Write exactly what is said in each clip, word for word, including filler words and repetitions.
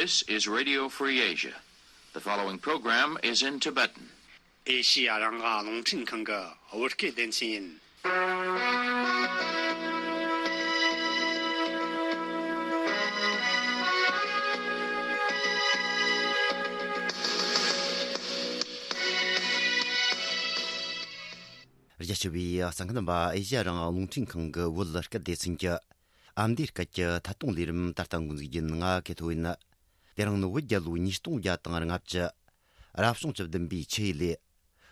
This is Radio Free Asia. The following program is in Tibetan. ཨེ་ཤི་ཡ་རང་དབང་རླུང་འཕྲིན་ཁང་གི་བོད་སྐད་སྡེ་ཚན་ཡིན། རྒྱ་ཆེ་བའི་གསན་མཁན་རྣམ་པ། ཨེ་ཤི་ཡ་རང་དབང་རླུང་འཕྲིན་ཁང་གི་བོད་སྐད་སྡེ་ཚན་གྱི་ཨ་མདོའི་སྐད་ཀྱི་ཐད་གཏོང་ལས་རིམ་ད་ལྟ་འགོ་འཛུགས་རྒྱུ་ཡིན། ང་ཀེ་ཐོ་ཡིན། དེ་རིང་ནི་བོད་རྒྱལ་ལོ་ཉིས་སྟོང་བརྒྱ་དང་ལྔ་བཅུ། རབ་བྱུང་བཅུ་བདུན་པའི་ཆུ་ཡོས་ལོའི་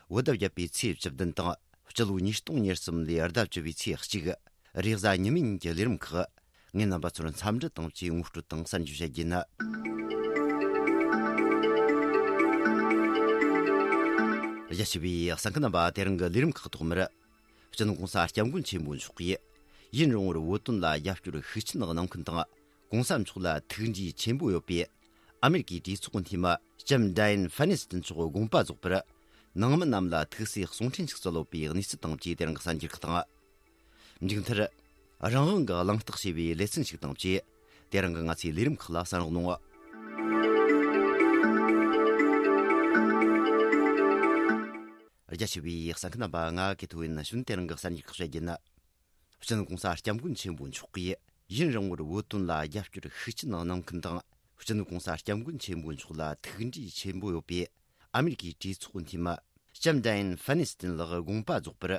བོད་ཟླ་བརྒྱད་པའི་ཚེས་བཅུ་བདུན་དང་། སྤྱི་ལོ་ཉིས་སྟོང་ཉེར་གསུམ་ལོའི་ཟླ་བཅུ་བའི་ཚེས་གཅིག། རེས་གཟའ་ཉི་མའི་ཉིན་གྱི་ལས་རིམ་ཁག། ངས་རྣམ་པ་ཚོར་འཚམས་འདྲི་དང་བཅས་ངོ་སྤྲོད་དང་གསར་འགྱུར་བཤད་རྒྱུ་ཡིན། རྒྱ་ཆེ་བའི་གསན་མཁན་རྣམ་པ། དེ་རིང་གི་ལས་རིམ་ཁག་ཐོག་མར། སྤྱི་ནོར་༧གོང་ས་༧སྐྱབས་མགོན་ཆེན་པོ་མཆོག་གིས་ཡུན་རིང་བོར་བོད་དོན་ལ་རྒྱབ་སྐྱོར་ཤུགས་ཆེན་གནང་མཁན་དང་། ༧གོང་ས་མཆོག་ལ་ཐུགས་འདྲིས་ཆེན་པོ་ཡོད་པའི་ཨ་མེ་རི་ཀའི་གྲོས་ཚོགས་འཐུས་མི་ལྕམ་ཌ་ཡན་ཧྥན་ནི་སྟན་མཆོག་དགོངས་པ་རྫོགས་པར། ནང་མི་རྣམས་ལ་ཐུགས་སྲས་གསུང་འཕྲིན་ཞིག་སྩལ་ཡོད་པའི་གནས་ཚུལ་དང་བཅས་དེ་རིང་གི་གསར་འགྱུར་ཁག་དང་། མཇུག་མཐར། རང་དབང་གི་གླེང་སྟེགས་ཞེས་པའི་ལེ་ཚན་ཞིག་དང་བཅས། དེ་རིང་གི་ང་ཚོའི་ལས་རིམ་ཁག་ལ་གསན་རོགས་གནང་། རྒྱ་ཆེ་བའི་གསན་མཁན་རྣམ་པ། ང་ཀེ་ཐོ་ཡིན། གཞུག་དེ་རིང་གི་གསར་འགྱུར་ཁག་བཤད་རྒྱུ་ཡིན། སྤྱི་ནོར་༧གོང་ས་༧སྐྱབས་མགོན་ཆེན་པོ་མཆོག་གིས་ཡུན་རིང་བོར་བོད་དོན་ལ་རྒྱབ་སྐྱོར་ཤུགས་ཆེན་གནང་མཁན་དང་། སྤྱི་ནོར་༧གོང་ས་༧སྐྱབས་མགོན་ཆེན་པོ་མཆོག་ལ་ཐུགས་འདྲིས་ཆེན་པོ་ཡོད་པའི་ཨ་མེ་རི་ཀའི་གྲོས་ཚོགས་འཐུས་མི་ལྕམ་ཌ་ཡན་ཧྥན་ནི་སྟན་ལགས་དགོངས་པ་རྫོགས་པར།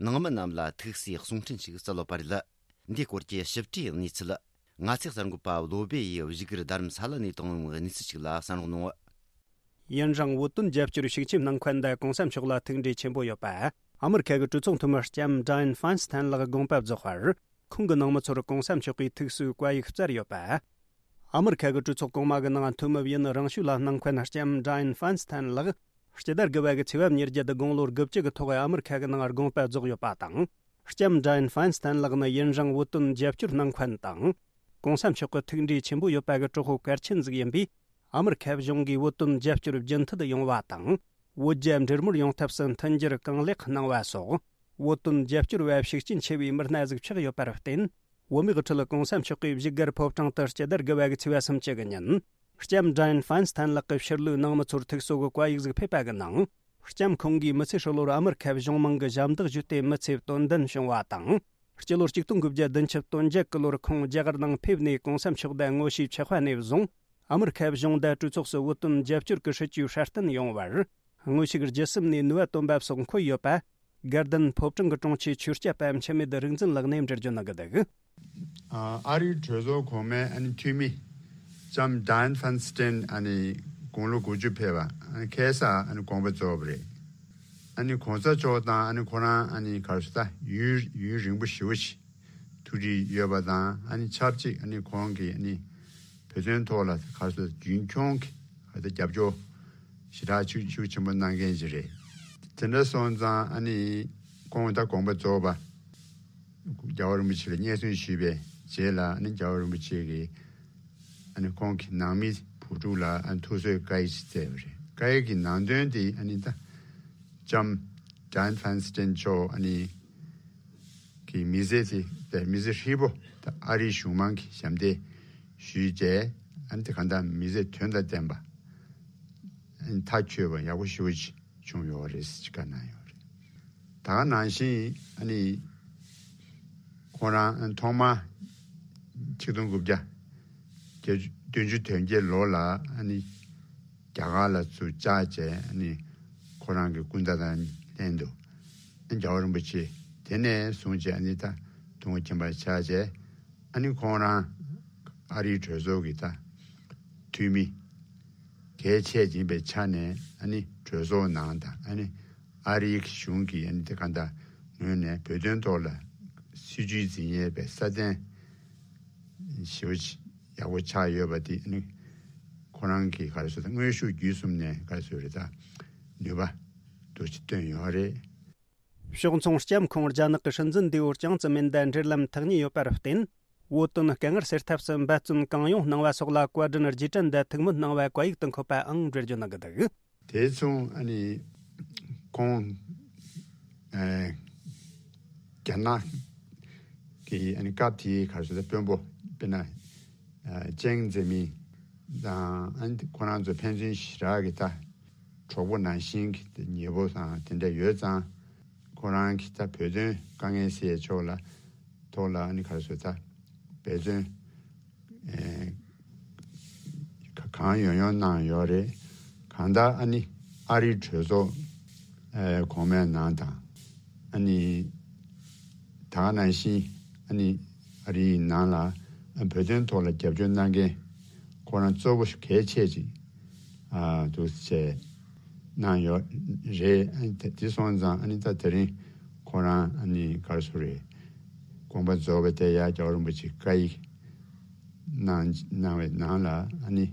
ནང་མི་རྣམས་ལ་ཐུགས་སྲས་གསུང་འཕྲིན་ཞིག་སྩལ་ཡོད་པ་རེད། འདིའི་སྐོར་གྱི་ཞིབ་ཕྲའི་གནས་ཚུལ། ང་ཚོའི་གསར་འགོད་པ་བློ་བྷེ་ཡིས་བཞུགས་སྒར་རྡ་རམ་ས་ལ་ནས་བཏང་བའི་གནས་ཚུལ་ཞིག་ལ་གསན་རོགས་གནང་། ཡུན་རིང་བོད་དོན་རྒྱབ་སྐྱོར་ཤུགས་ཆེན་གནང་མཁན་དང་༧གོང་ས་མཆོག་ལ་ཐུགས་འདྲིས་ཆེན་པོ་ཡོད་པ། ཨ་མེ་རི་ཁ་གི་གྲོས་ཚོགས་འཐུས་མི་ལྕམ་ཌ་ཡན་ཧྥན་སི་ཐན་ལགས་དགོངས་པ་རྫོགས་པར། ཁོང་གི་ནང་མི་ཚོར་༧གོང་ས་མཆོག་གིས་ཐུགས་གསོའི་བཀའ་ཡིག་སྩལ་ཡོད་པ། ཨ་མེ་རི་ཁ་གི་གྲོས་ཚོགས་གོང་མ་གི་ནང་འཐུས་མི་ཡུན་རིང་ཤོས་ལ་སྣང་མཁན་ལྕམ་ཌ་ཡན་ཧྥན་སི་ཐན་ལགས། སྤྱི་ཟླ་དགུ་པ་གི་ཚེས་པ་ཉེར་བརྒྱད་དགུང་ལོ་དགུ་བཅུ་གི་ཐོག་ཨ་མེ་རི་ཁ་གི་ནང་དགོངས་པ་རྫོགས་ཡོད་པ་དང་། ལྕམ་ཌ་ཡན་ཧྥན་སི་ཐན་ལགས་ནི་ཡུན་རིང་བོད་དོན་རྒྱབ་སྐྱོར་གནང་མཁན་དང་། ༧གོང་ས་མཆོག་གི་ཐུགས་འདྲིས་ཆེན་པོ་ཡོད་པ་གི་གྲོགས་པོ་གལ་ཆེན་ཟིག་ཡིན་པས། ཨ་མེ་རི་ཁ་གཞུང་གིས་བོད་དོན་རྒྱབ་སྐྱོར་རྒྱུན་མཐུད་ཡོང་བ་དང་། བོད་རྒྱ་འབྲེལ་མོལ་ཡོང་ཐབས་སུ་མཐུན་འགྱུར་གང་ལེགས་གནང་བ་སོགས། བོད་དོན་རྒྱབ་སྐྱོར་བ་ཤུགས་རྐྱེན་ཆེ་བའི་མི་སྣ་ཟིག་ཆགས་ཡོད་པར་བརྟེན། བོད་མིའི་ཁྲོད་༧གོང་ས་མཆོག་གིས་བཞུགས་སྒར་ཕོ་བྲང་དུ་སྤྱི་ཟླ་དགུ་པ་གི་ཚེས་པ་སུམ་ཅུ་གི་ཉིན། ལྕམ་ཌ་ཡན་ཧྥན་སི་ཐན་ལགས་ཀྱི་ཕྱིར་ལོག་ནང་མི་ཚོར་ཐུགས་གསོ་གི་བཀའ་ཡིག་ཟིག་ཕེབས་པ་གི་ནང་། ལྕམ་ཁོང་གིས་མི་ཚེ་ཧྲིལ་བོར་ཨ་མེ་རི་ཁ་གཞུང་མང་གི་ཞབས་འདེགས་ཞུས་ཏེ་མི་ཚེ་དོན་ལྡན་བྱུང་བ་དང་། སྤྱི་ལོ་ཆིག་སྟོང་དགུ་བརྒྱ་བདུན་ཅུ་དོན་བརྒྱད་གི་ལོར་ཁོང་རྒྱ་གར་ནང་ཕེབས་ནས་༧གོང་ས་མཆོག་དང་དངོས་ཤུགས་ཆགས་པ་ནས་བཟུང་། ཨ་མེ་རི་ཁ་གཞུང་དང་གྲོས་ཚོགས་སུ་བོད་དོན་རྒྱབ་སྐྱོར་གྱི་སྲིད་ཇུས་སྲ་བརྟན་ཡོང་བར། དངོས་ཤུགས་བརྒྱུད་གསུམ་ནས་ནུས་པ་བཏོན་པ་སོགས་འཁོད་ཡོད་པ། དགའ་ལྡན་ཕོ་བྲང་གི་དྲུང་ཆེ་ཆོས་སྐྱབས་པ་འཆི་མེད་རིག་འཛིན་ལགས་ནས་འགྲེལ་བརྗོད་གནང་གི་འདུག། ཨ་རིའི་གྲོས་ཚོགས་གོང་མའི་ཨ་ནི་འཐུས་མི་ལྕམ་ཌ་ཡན་ཧྥན་སི་ཐན་ཨ་ནི་དགུང་ལོ་དགུ་བཅུ་ཕེབས་པ་ཨ་ནི་ཁ་སང་ཨ་ནི་དགོངས་པ་རྫོགས་པ་རེད། ཨ་ནི་གོང་ས་མཆོག་དང་ཨ་ནི་ཁོ་རང་ཨ་ནི་ག་རེ་ཟེར་ད་ཡུན་ཡུན་རིང་པོ་ཞེ་པོ་ཅིག་ཐུགས་འདྲིས་ཡོད་པ་དང་ཨ་ནི་ཆབས་ཅིག་ཨ་ནི་ཁོང་གིས་ཨ་ནི་བོད་དོན་ཐོག་ལ་ག་རེ་ཟེར་རྒྱུན་འཁྱོངས་ཀྱི་ག་རེ་ཟེར་རྒྱབ་སྐྱོར་ཞེ་དྲག་ཤུགས་ཤུགས་ཆེན་པོ་གནང་མཁན་ཅིག་རེད། དེ་འདྲ་སོང་ཙང་ཨ་ནི་ཁོང་ད་དགོངས་པ་རྫོགས་པ། རྒྱལ་བ་རིན་པོ་ཆེ་ལ་སྙན་སེང་ཞུས་པའི་རྗེས་ལ་ཨ་ནི་རྒྱལ་བ་རིན་པོ་ཆེ་གིས་ཨ་ནི་ཁོང་གི་ནང་མི་བུ་ཕྲུག་ལ་ཨ་ནི་ཐུགས་གསོའི་བཀའ་ཡིག་ཅིག་སྩལ་བ་རེད། བཀའ་ཡིག་གི་ནང་དོན་དེ་ཨ་ནི་ད་ལྕམ་ཌ་ཡན་ཧྥན་སི་ཐན་མཆོག་ཨ་ནི་གི་མི་ཚེ་དེ་དེ་མི་ཚེ་ཧྲིལ་པོ་ད་ཨ་རིའི་གཞུང་མང་གི་ཞབས་འདེགས་ཞུས་རྗེས་ཨ་ནི་དེ་གང་ལྟར་མི་ཚེ་དོན་དང་ལྡན་པ་ཨ་ནི་མཐའ་ཆོད་པ་ཡག་པོ་ཞེ་པོ་ཅིག་བྱུང་ཡོད་རེད་ཅེས་བཀའ་གནང་ཡོད་རེད། ད་ག་ནང་བཞིན་ཨ་ནི་ཁོང་རང་ཐོག་མར་ཆིག་སྟོང་དགུ་བརྒྱ་བདུན་ཅུ་དོན་བརྒྱད་ལོ་ལ་ཨ་ནི་རྒྱ་གར་ལ་ཚུར་བཅར་བྱས་ཨ་ནི་ཁོ་རང་གི་སྐུ་ཟླ་དང་ལྷན་དུ་ཨ་ནི་རྒྱལ་བ་རིན་པོ་ཆེ་དེ་ནས་བཟུང་བྱས་ཨ་ནི་ད་དུས་འཁོར་ཆེན་པོར་བཅར་བྱས་ཨ་ནི་ཁོང་རང་ཨ་རིའི་གྲོས་ཚོགས་ཀྱི་ད་འཐུས་མི་གལ་ཆེ་ཅིག་ཡིན་པའི་ཆ་ནས་ཨ་ནི་གྲོས་ཚོགས་ནང་དང་ཨ་ནི་ཨ་རིའི་གཞུང་གི་ཨ་ནི་དེ་ག་འདྲ་ངོས་ནས་བོད་དོན་ཐོག་ལ་སྲིད་ཇུས་འཛིན་ཡས་པའི་སྲ་བརྟན་ཞེ་པོ་ཅིག་ཡག་པོ་ཆགས་ཡོད་པ་དེ་ཨ་ནི་ཁོ་རང་གི་ག་རེ་ཟེར་ད་དངོས་ཤུགས་བརྒྱུད་གསུམ་ནས་ག་རེ་ཟེར་རེད་ད་ནུས་པ་འདུག་ཅིག་བཏོན་ཡོད་རེད། ཕྱོགས་མཚུངས་ལྕམ་ཁོང་རྒྱ་ནག་གི་སྲིད་འཛིན་འདས་པོ་ཅང་ཙེ་མིན་དང་འབྲེལ་ལམ་ཐག་ཉེ་ཡོད་པར་བརྟེན། བོད་དོན་དཀའ་ངལ་སེལ་ཐབས་སུ་འབད་བརྩོན་གང་ཡོང་གནང་བ་སོགས་ལ་བཀའ་དྲིན་རྗེས་དྲན་དང་ཐུགས་སྨོན་གནང་བའི་བཀའ་ཡིག་ཏུ་འཁོད་པའང་འགྲེལ་བརྗོད་གནང་གི་འདུག། དེ་མཚུངས་ཨ་ནི་ཁོང་ཨ་རྒྱ་ནག་གི་ཨ་ནི་སྐབས་དེའི་ག་རེ་ཟེར་ད་དཔོན་པོ་དཔེར་ན་ཨ་ཅང་ཙེ་མིན། དང་ཨ་ནི་ཁོ་རང་ཚོ་ཕན་ཚུན་ཞེ་དྲག་གི་ད་གྲོགས་པོ་ནང་བཞིན་གྱི་ཉེ་པོ་དང་དེ་འདྲ་ཡོད་ཙང་། ཁོ་རང་གི་ད་བོད་དོན་དཀའ་ངལ་སེལ་ཕྱོགས་ལ་ཐོག་ལ་ཨ་ནི་ག་རེ་ཟེར་ད་འབད་བརྩོན་ཨེ་ག་གང་ཡོང་ཡོང་གནང་ཡོད་རེད། གང་ལྟར་ཨ་ནི་ཨ་རིའི་གྲོས་ཚོགས་ཨེ་གོང་མའི་ནང་དང་། ཨ་ནི་ད་ག་ནང་བཞིན་ཨ་ནི་ཨ་རིའི་ནང་ལ་བོད་དོན་ཐོག་ལ་རྒྱབ་སྐྱོར་གནང་མཁན་ཁོ་རང་གཙོ་བོ་གལ་ཆེ་ཅིག་ཨ་འདུག་ཅེས་གནང་ཡོད་རེད། ཨ་ནི་དེ་སོང་ཙང་ཨ་ནི་ད་དེ་རིང་ཁོ་རང་ཨ་ནི་ག་རེ་ཟེར་རེད། དགོངས་པ་རྫོགས་པ་དེ་ཡང་རྒྱལ་བ་རིན་པོ་ཆེ་བཀའ་ཡིག་གནང་གནང་བའི་ནང་ལ་ཨ་ནི་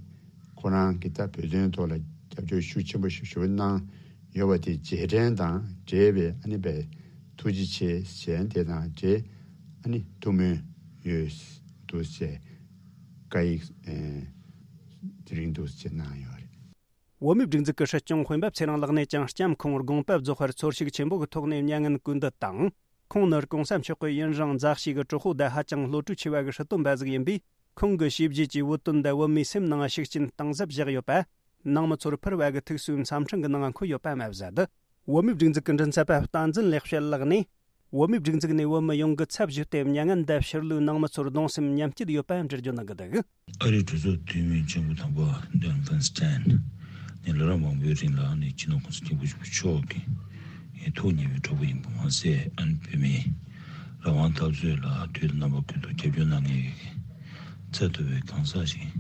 ཁོ་རང་གིས་ད་བོད་དོན་ཐོག་ལ་རྒྱབ་སྐྱོར་ཤུགས་ཆེན་པོ་ཞིག་ཞུ་གནང་ཡོད་པ་དེ་རྗེས་དྲན་དང་འབྲེལ་བའི་ཨ་ནི་བའི་ཐུགས་རྗེ་ཆེ་ཞེས་དེ་དང་འབྲེལ་ཨ་ནི་ཐུགས་སྨོན་ཡོད་འདུག་ཅེས་བཀའ་ཡིག་ཨེ་དེ་རིང་འདུག་ཅེས་གནང་ཡོད་རེད། བོད་མིའི་སྒྲིག་འཛུགས་ཀྱི་སྲིད་སྐྱོང་དཔོན་པོ་ཚེ་རིང་ལགས་ནས་ཀྱང་ལྕམ་ཁོང་དགོངས་པ་རྫོགས་པར་ཚོར་ཤུགས་ཆེན་པོ་གི་ཐོག་ནས་མྱ་ངན་གུས་འདུད་དང་། ཁོང་ནི་གོང་ས་མཆོག་གི་ཡུན་རིང་མཛའ་བཤེས་ཀྱི་གྲོགས་པོ་དང་ཧ་ཅང་བློ་གྲོས་ཆེ་བ་གི་སྲིད་དོན་པ་ཟིག་ཡིན་པས། ཁོང་གི་བྱས་རྗེས་ཀྱི་བོད་དོན་དང་བོད་མིའི་སེམས་ནང་ཤུགས་རྐྱེན་གཏིང་ཟབ་བཞག་ཡོད་པ། ནང་མི་ཚོར་ཕུལ་བ་གི་ཐུགས་གསོའི་འཚམས་འཕྲིན་གྱི་ནང་འཁོད་ཡོད་པ་མ་ཟད། བོད་མིའི་སྒྲིག་འཛུགས་ཀྱི་མགྲིན་ཚབ་པ་བསྟན་འཛིན་ལེགས་བཤད་ལགས་ནས། བོད་མིའི་སྒྲིག་འཛུགས་ནས་བོད་མི་ཡོངས་ཀྱི་ཚབ་ཞུས་ཏེ་མྱ་ངན་འདའ་ཕྱིར་ལོག་ནང་མི་ཚོར་གདུང་སེམས་མཉམ་སྐྱེད་ཡོད་པ་འགྲེལ་བརྗོད་གནང་གི་འདུག་ཨ་རིའི་གྲོས་ཚོགས་འཐུས་མི་ཆེན་པོ་དམ་པ་ཌོན་ཕན་སི་ཏན་ནས་ལོ་རབས་མང་པོའི་རིང་ལ་ནི་སྤྱི་ནོར་གོང་ས་སྐྱབས་མགོན་ཆེན་པོ་མཆོག་གི་ཐུགས་མཉེས་པའི་གྲོགས་པོ་ཡིན་པ་མ་ཟད། ཨ་ནི་བོད་མིའི་རང་དབང་འཐབ་རྩོད་ལ་དུས་དང་རྣམ་པ་ཀུན་ཏུ་རྒྱབ་སྐྱོར་གནང་མཁན་གྱི་ཚད་མཐོ་བའི་གང་ཟག་ཞིག་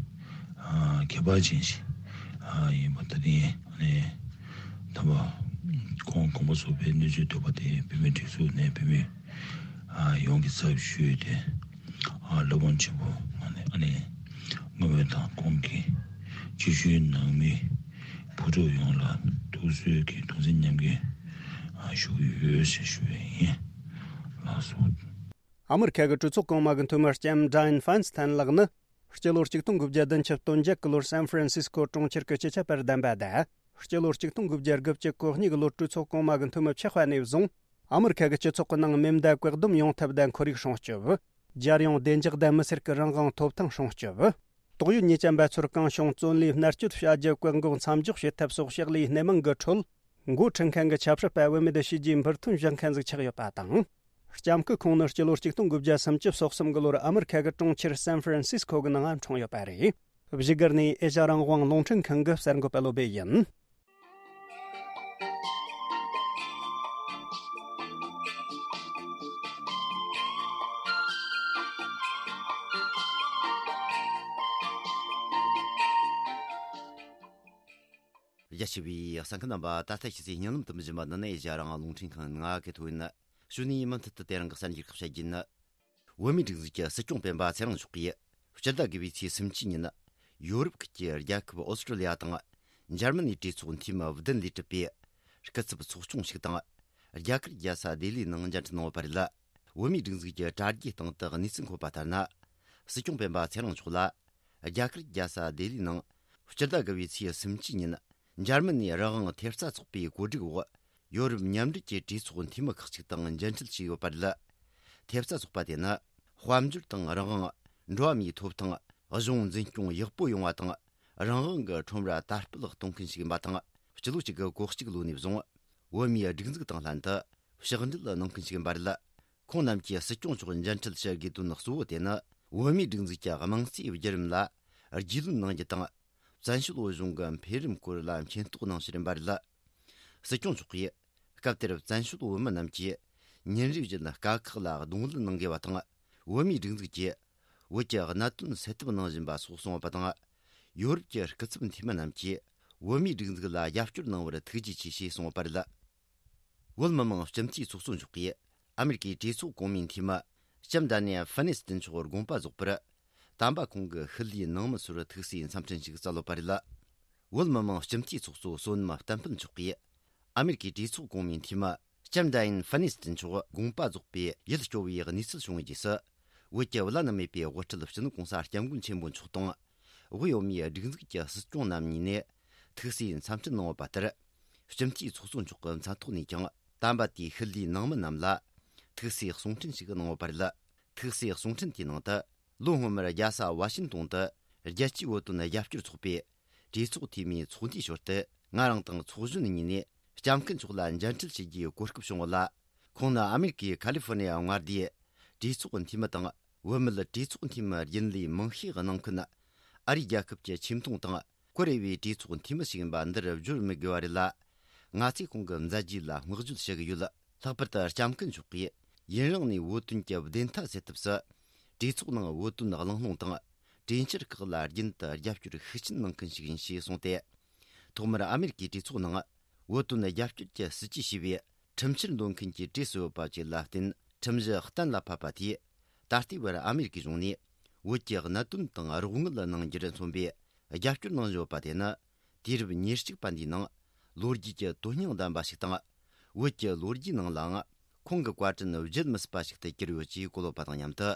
ཨ་ཁྱད་པར་ཅན་ཞིག་ཨ་ཡིན་པ་ད་ཐེངས་ཨ་ནི་དམ་པ་ཁོང་དགོངས་པ་རྫོགས་པའི་གནས་ཚུལ་ཐོས་པ་དེ་བོད་མིའི་སྒྲིག་འཛུགས་ནས་བོད་མི་ཨ་ཡོངས་ཀྱི་ཚབ་ཞུས་ཏེ། ཨ་སློབ་དཔོན་ཆེན་པོ་ཨ་ནི་ཨ་ནི་བསྔོ་སྨོན་དང་ཁོང་གི་སྤྱི་ཞུའི་ནང་མི་བུ་ཕྲུག་ཡོངས་ལ་ཐུགས་གསོའི་གི་གདུང་སེམས་མཉམ་སྐྱེད་ཨ་ཞུ་གི་ཡོད་ཞེས་ཞུ་བ་ཡིན། ལགས་སོ། ཨ་མི་རི་ཁ་གི་གྲོས་ཚོགས་གོང་མ་གི་འཐུས་མི་ལྕམ་ཌ་ཡན་ཧྥན་སི་ཐན་ལགས་ནི། སྤྱི་ལོ་ཆིག་སྟོང་དགུ་བརྒྱ་བདུན་ཅུ་དོན་བརྒྱད་གི་ལོར་སན་ཧྥ་རན་སིས་ཀོ་གྲོང་ཁྱེར་གྱི་སྤྱི་ཁྱབ་པར་གདམ་པ་དང་། སྤྱི་ལོ་ཆིག་སྟོང་དགུ་བརྒྱ་དགུ་བཅུ་གོ་གཉིས་གི་ལོར་གྲོས་ཚོགས་གོང་མ་གི་འཐུས་མི་ཆགས་པ་ནས་བཟུང་། ཨ་མི་རི་ཁ་གི་སྤྱི་ཚོགས་ཀྱི་ནང་མེ་མདའ་བཀག་སྡོམ་ཡོང་ཐབས་དང་ཁོར་ཡུག་སྲུང་སྐྱོབ། རྒྱལ་ཡོངས་བདེ་འཇགས་དང་མི་སེར་གྱི་རང་དབང་ཐོབ་ཐང་སྲུང་སྐྱོབ། དོགས་ཡོད་ཉེས་ཅན་པ་ཚོར་གང་བྱུང་བཙོན་ལས་མནར་གཅོད་བྱ་རྒྱུ་བཀག་འགོག་མཚམས་འཇོག་བྱེད་ཐབས་སོགས་ཕྱག་ལས་སྣེ་མང་གི་ཁྲོད། འགོ་ཁྲིད་མཁན་གྱི་ཆབ་སྲིད་པ་བུད་མེད་བྱས་རྗེས་འབུར་ཐོན་བཞག་མཁན་ཟིག་ཆགས་ཡོད་པ་དང་། ལྕམ་སྐུ་ཁོང་ནི་སྤྱི་ལོ་ཆིག་སྟོང་དགུ་བརྒྱ་སུམ་ཅུ་སོ་གསུམ་གི་ལོར་ཨ་མི་རི་ཁ་གི་གྲོང་ཁྱེར་སན་ཧྥ་རན་སིས་ཁོ་གི་ནང་འཁྲུངས་ཡོད་པ་རེད། བཞུགས་སྒར་ནས་ཨེ་ཤ་རང་དབང་རླུང་འཕྲིན་ཁང་གི་གསར་འགོད་པ་བློ་སྦེ་ཡིན། རྒྱ་ཆེ་བའི་གསན་མཁན་རྣམ་པ། ད་ལྟ་ཤེས་ཚེ་སྙན་ལམ་དུ་མི་བཞིན་པ་འདི་ནི་ཨེ་ཤ་རང་དབང་རླུང་འཕྲིན་ཁང་ནང་གི་ཐོག་ཡིན། ཞུ་ནས་མུ་མཐུད་དུ་དེ་རིང་གི་གསར་འགྱུར་ཁག་བཤད་རྒྱུ་ཡིན། བོད་མིའི་སྒྲིག་འཛུགས་ཀྱི་སྲིད་སྐྱོང་སྤེན་པ་ཚེ་རིང་མཆོག་གིས་སྤྱི་ཟླ་དགུ་པའི་ཚེས་སུམ་ཅུ་ཉིན་ཡོ་རོབ་ཁུལ་གྱི་རྒྱལ་ཁབ་ཨོ་སི་ཀྲི་ལི་ཡ་དང་འཇར་མ་ནིའི་གྲོས་ཚོགས་འཐུས་མི་བདུན་ལས་གྲུབ་པའི་སྐུ་ཚབ་ཚོགས་ཆུང་ཞིག་དང་རྒྱ་གར་རྒྱལ་ས་ལྡི་ལིའི་ནང་མཇལ་འཕྲད་གནང་བ་རེད། བོད་མིའི་སྒྲིག་འཛུགས་ཀྱི་དྲ་རྒྱའི་སྟེང་དུ་གནས་ཚུལ་འཁོད་པ་ལྟར་ན། སྲིད་སྐྱོང་སྤེན་པ་ཚེ་རིང་མཆོག་ལ་རྒྱ་གར་རྒྱལ་ས་ལྡི་ལིའི་ནང་སྤྱི་ཟླ་དགུ་པའི་ཚེས་སུམ་ཅུ་ཉིན་འཇར་མ་ནིའི་རང་དབང་ཐེབས་རྩ་ཚོགས་པའི་གོ་སྒྲིག་འོག་ཡོ་རོབ་མཉམ་འབྲེལ་གྱི་གྲོས་ཚོགས་འཐུས་མི་ཁག་ཅིག་དང་མཇལ་འཕྲད་བྱས་ཡོད་པ་རེད། ཐེབས་རྩ་ཚོགས་པ་དེ་ནི་དཔལ་འབྱོར་དང་རང་དབང་། འགྲོ་བ་མིའི་ཐོབ་ཐང་། གཞུང་འཛིན་སྐྱོང་ཡག་པོ་ཡོང་བ་དང་། རང་དབང་གི་ཁྲོམ་ར་དར་སྤེལ་གཏོང་མཁན་ཞིག་ཡིན་པ་དང་། སྤྱི་ལོ་གཅིག་དགུ་གོ་གཅིག་ལོ་ནས་བཟུང་བོད་མིའི་སྒྲིག་འཛུགས་དང་ལྷན་དུ་ཕྱག་འབྲེལ་གནང་མཁན་ཞིག་ཡིན་པ་རེད། ཁོང་རྣམས་ཀྱིས་སྲིད་སྐྱོང་མཆོག་མཇལ་འཕྲད་བྱ་དགོས་དོན་གཙོ་བོ་དེ་ནི། བོད་མིའི་སྒྲིག་འཛུགས་ཀྱི་དམངས་གཙོའི་བརྒྱུད་རིམ་ལ་རྒྱུས་ལོན་གནང་རྒྱུ་དང་། བཙན་བྱོལ་བོད་གཞུང་གི་འཕེལ་རིམ་སྐོར་ལ་མཁྱེན་རྟོགས་གནང་ཕྱིར་ཡིན་པ་རེད། སྲིད་སྐྱོང་མཆོག་གིས་སྐབས་དེར་བཙན་བྱོལ་བོད་མི་རྣམས་ཀྱིས་ཉིན་རེ་བཞིན་དཀའ་ཁག་ལ་གདོང་ལེན་གནང་དགོས་པ་དང་། བོད་མིའི་སྒྲིག་འཛུགས་ཀྱིས་བོད་ཀྱི་གནད་དོན་སེལ་ཐབས་གནང་བཞིན་པ་སོགས་གསུངས་པ་དང་། ཡོ་རོབ་ཀྱི་སྐུ་ཚབ་འཐུས་མི་རྣམས་ཀྱིས་བོད་མིའི་སྒྲིག་འཛུགས་ལ་རྒྱབ་སྐྱོར་གནང་བར་ཐུགས་རྗེ་ཆེ་ཞེས་གསུངས་པ་རེད། བོད་མི་མང་སྤྱི་འཐུས་ཚོགས་གཙོ་མཆོག་གིས་ཨ་མེ་རི་ཀའི་གྲོས་ཚོགས་གོང་མའི་འཐུས་མི་ལྕམ་ཌ་ནེ་ཧྥ་ནེ་སི་ཏན་མཆོག་དགོངས་པ་རྫོགས་པར། དམ་པ་ཁོང་གི་ཤུལ་ལུས་ནང་མི་ཚོར་ཐུགས་སྲས་འཚམས་འཕྲིན་ཞིག་བསྩལ་ཡོད་པ་རེད། བོད་མི་མང་སྤྱི་འཐུས་ཚོགས་གཙོ་བསོད་ནམས་བསྟན་འཕེལ་མཆོག་གིས་ཨ་མེ་རི་ཀའི་གྲོས་ཚོགས་གོང་མའི་འཐུས་མི་ལྕམ་ཌ་ཡན་ཧྥ་ནེ་སི་ཏན་མཆོག་དགོངས་པ་རྫོགས་པའི་ཡིད་སྐྱོ་བའི་གནས་ཚུལ་བྱུང་བའི་རྗེས་སུ། བོད་ཀྱི་བླ་ན་མེད་པའི་དབུ་ཁྲིད་སྤྱི་ནོར་༧གོང་ས་༧སྐྱབས་མགོན་ཆེན་པོ་མཆོག་དང་། དབུས་བོད་མིའི་སྒྲིག་འཛུགས་ཀྱི་སྲིད་སྐྱོང་རྣམ་གཉིས་ནས་ཐུགས་སྲས་འཚམས་འཕྲིན་གནང་བ་ལྟར། སྤྱི་འཐུས་ཚོགས་གཙོ་མཆོག་གི་མཚན་ཐོག་ནས་ཀྱང་དམ་པ་དེའི་ཤུལ་ལུས་ནང་མི་རྣམས་ལ་ཐུགས་སྲས་གསུང་འཕྲིན་ཞིག་གནང་བ་རེད། ཐུགས་སྲས་གསུང་འཕྲིན་དེའི་ནང་དུ། ལོ་སྔོན་མར་རྒྱལ་ས་ཝ་ཤིན་ཏོན་དུ་ རྒྱལ་སྤྱིའི་བོད་དོན་རྒྱབ་སྐྱོར་ཚོགས་པའི་གྲོས་ཚོགས་འཐུས་མིའི་ཚོགས་འདུའི་ཞོར་དུ། ང་རང་དང་ཚོགས་གཞོན་གཉིས་ནས་སྐྱབས་མགོན་མཆོག་ལ་མཇལ་འཕྲད་བྱེད་རྒྱུའི་གོ་སྐབས་བྱུང་བ་ལ། ཁོང་ནི་ཨ་མེ་རི་ཀའི་ཁ་ལི་ཧྥོ་ནི་ཡ་མངའ་སྡེའི་གྲོས་ཚོགས་འཐུས་མི་དང་། བུད་མེད་གྲོས་ཚོགས་འཐུས་མི་རྒྱུན་ལས་མང་ཤས་གནང་མཁན། ཨ་རིའི་རྒྱལ་ཁབ་ཀྱི་ཆེ་མཐོང་དང་ཀོ་རེ་བའི་གྲོས་ཚོགས་འཐུས་མི་ཞིག་ཡིན་པ་འདིར་བརྗོད་མི་དགོས་པ་རེད་ལ། ང་ཚོས་ཁོང་གི་མཛད་རྗེས་ལ་བསྔགས་བརྗོད་ཞུ་གི་ཡོད། ལྷག་པར་དུ་སྐྱབས་མགོན་མཆོག་གིས་ཡུན་རིང་ནས་བོད་དོན་གྱི་བདེན་མཐའ་གསལ་ཐབས་སུ། གྲོས་ཚོགས་ནང་བོད་དོན་གླེང་སློང་དང་། གྲོས་འཆར་ཁག་ལ་རྒྱུན་དུ་རྒྱབ་སྐྱོར་ཤུགས་ཆེན་གནང་མཁན་ཞིག་ཡིན་ཞེས་གསུངས་ཏེ། ཐོག་མར་ཨ་མེ་རི་ཀའི་གྲོས་ཚོགས་ནང་བོད་དོན་རྒྱབ་སྐྱོར་གྱི་སྲིད་ཇུས་ཞེས་པའི་ཁྲིམས་འཆར་འདོན་མཁན་གྱི་གྲས་སུ་ཡོད་པ་བཅས་ལ་བརྟེན། ཁྲིམས་གཞི་གཏན་ལ་ཕབ་པ་དེས། ད་ལྟའི་བར་ཨ་མེ་རི་ཀའི་གཞུང་ནས་བོད་ཀྱི་གནད་དོན་དང་རོགས་དངུལ་གནང་རྒྱུར་མཚོན་པའི་རྒྱབ་སྐྱོར་གནང་བཞིན་ཡོད་པ་དེ་ནི། དུས་རབས་ཉེར་གཅིག་པ་འདིའི་ནང་ལོ་རྒྱུས་ཀྱི་དོན་སྙིང་ལྡན་པ་ཞིག་དང་། བོད་ཀྱི་ལོ་རྒྱུས་ནང་ལའང་ཁོང་གི་བཀའ་དྲིན་བརྗེད་མི་སྲིད་པ་ཞིག་ཏུ་གྱུར་ཡོད་ཅེས་གོ་ལོག་པ་དང་མཉམ་དུ།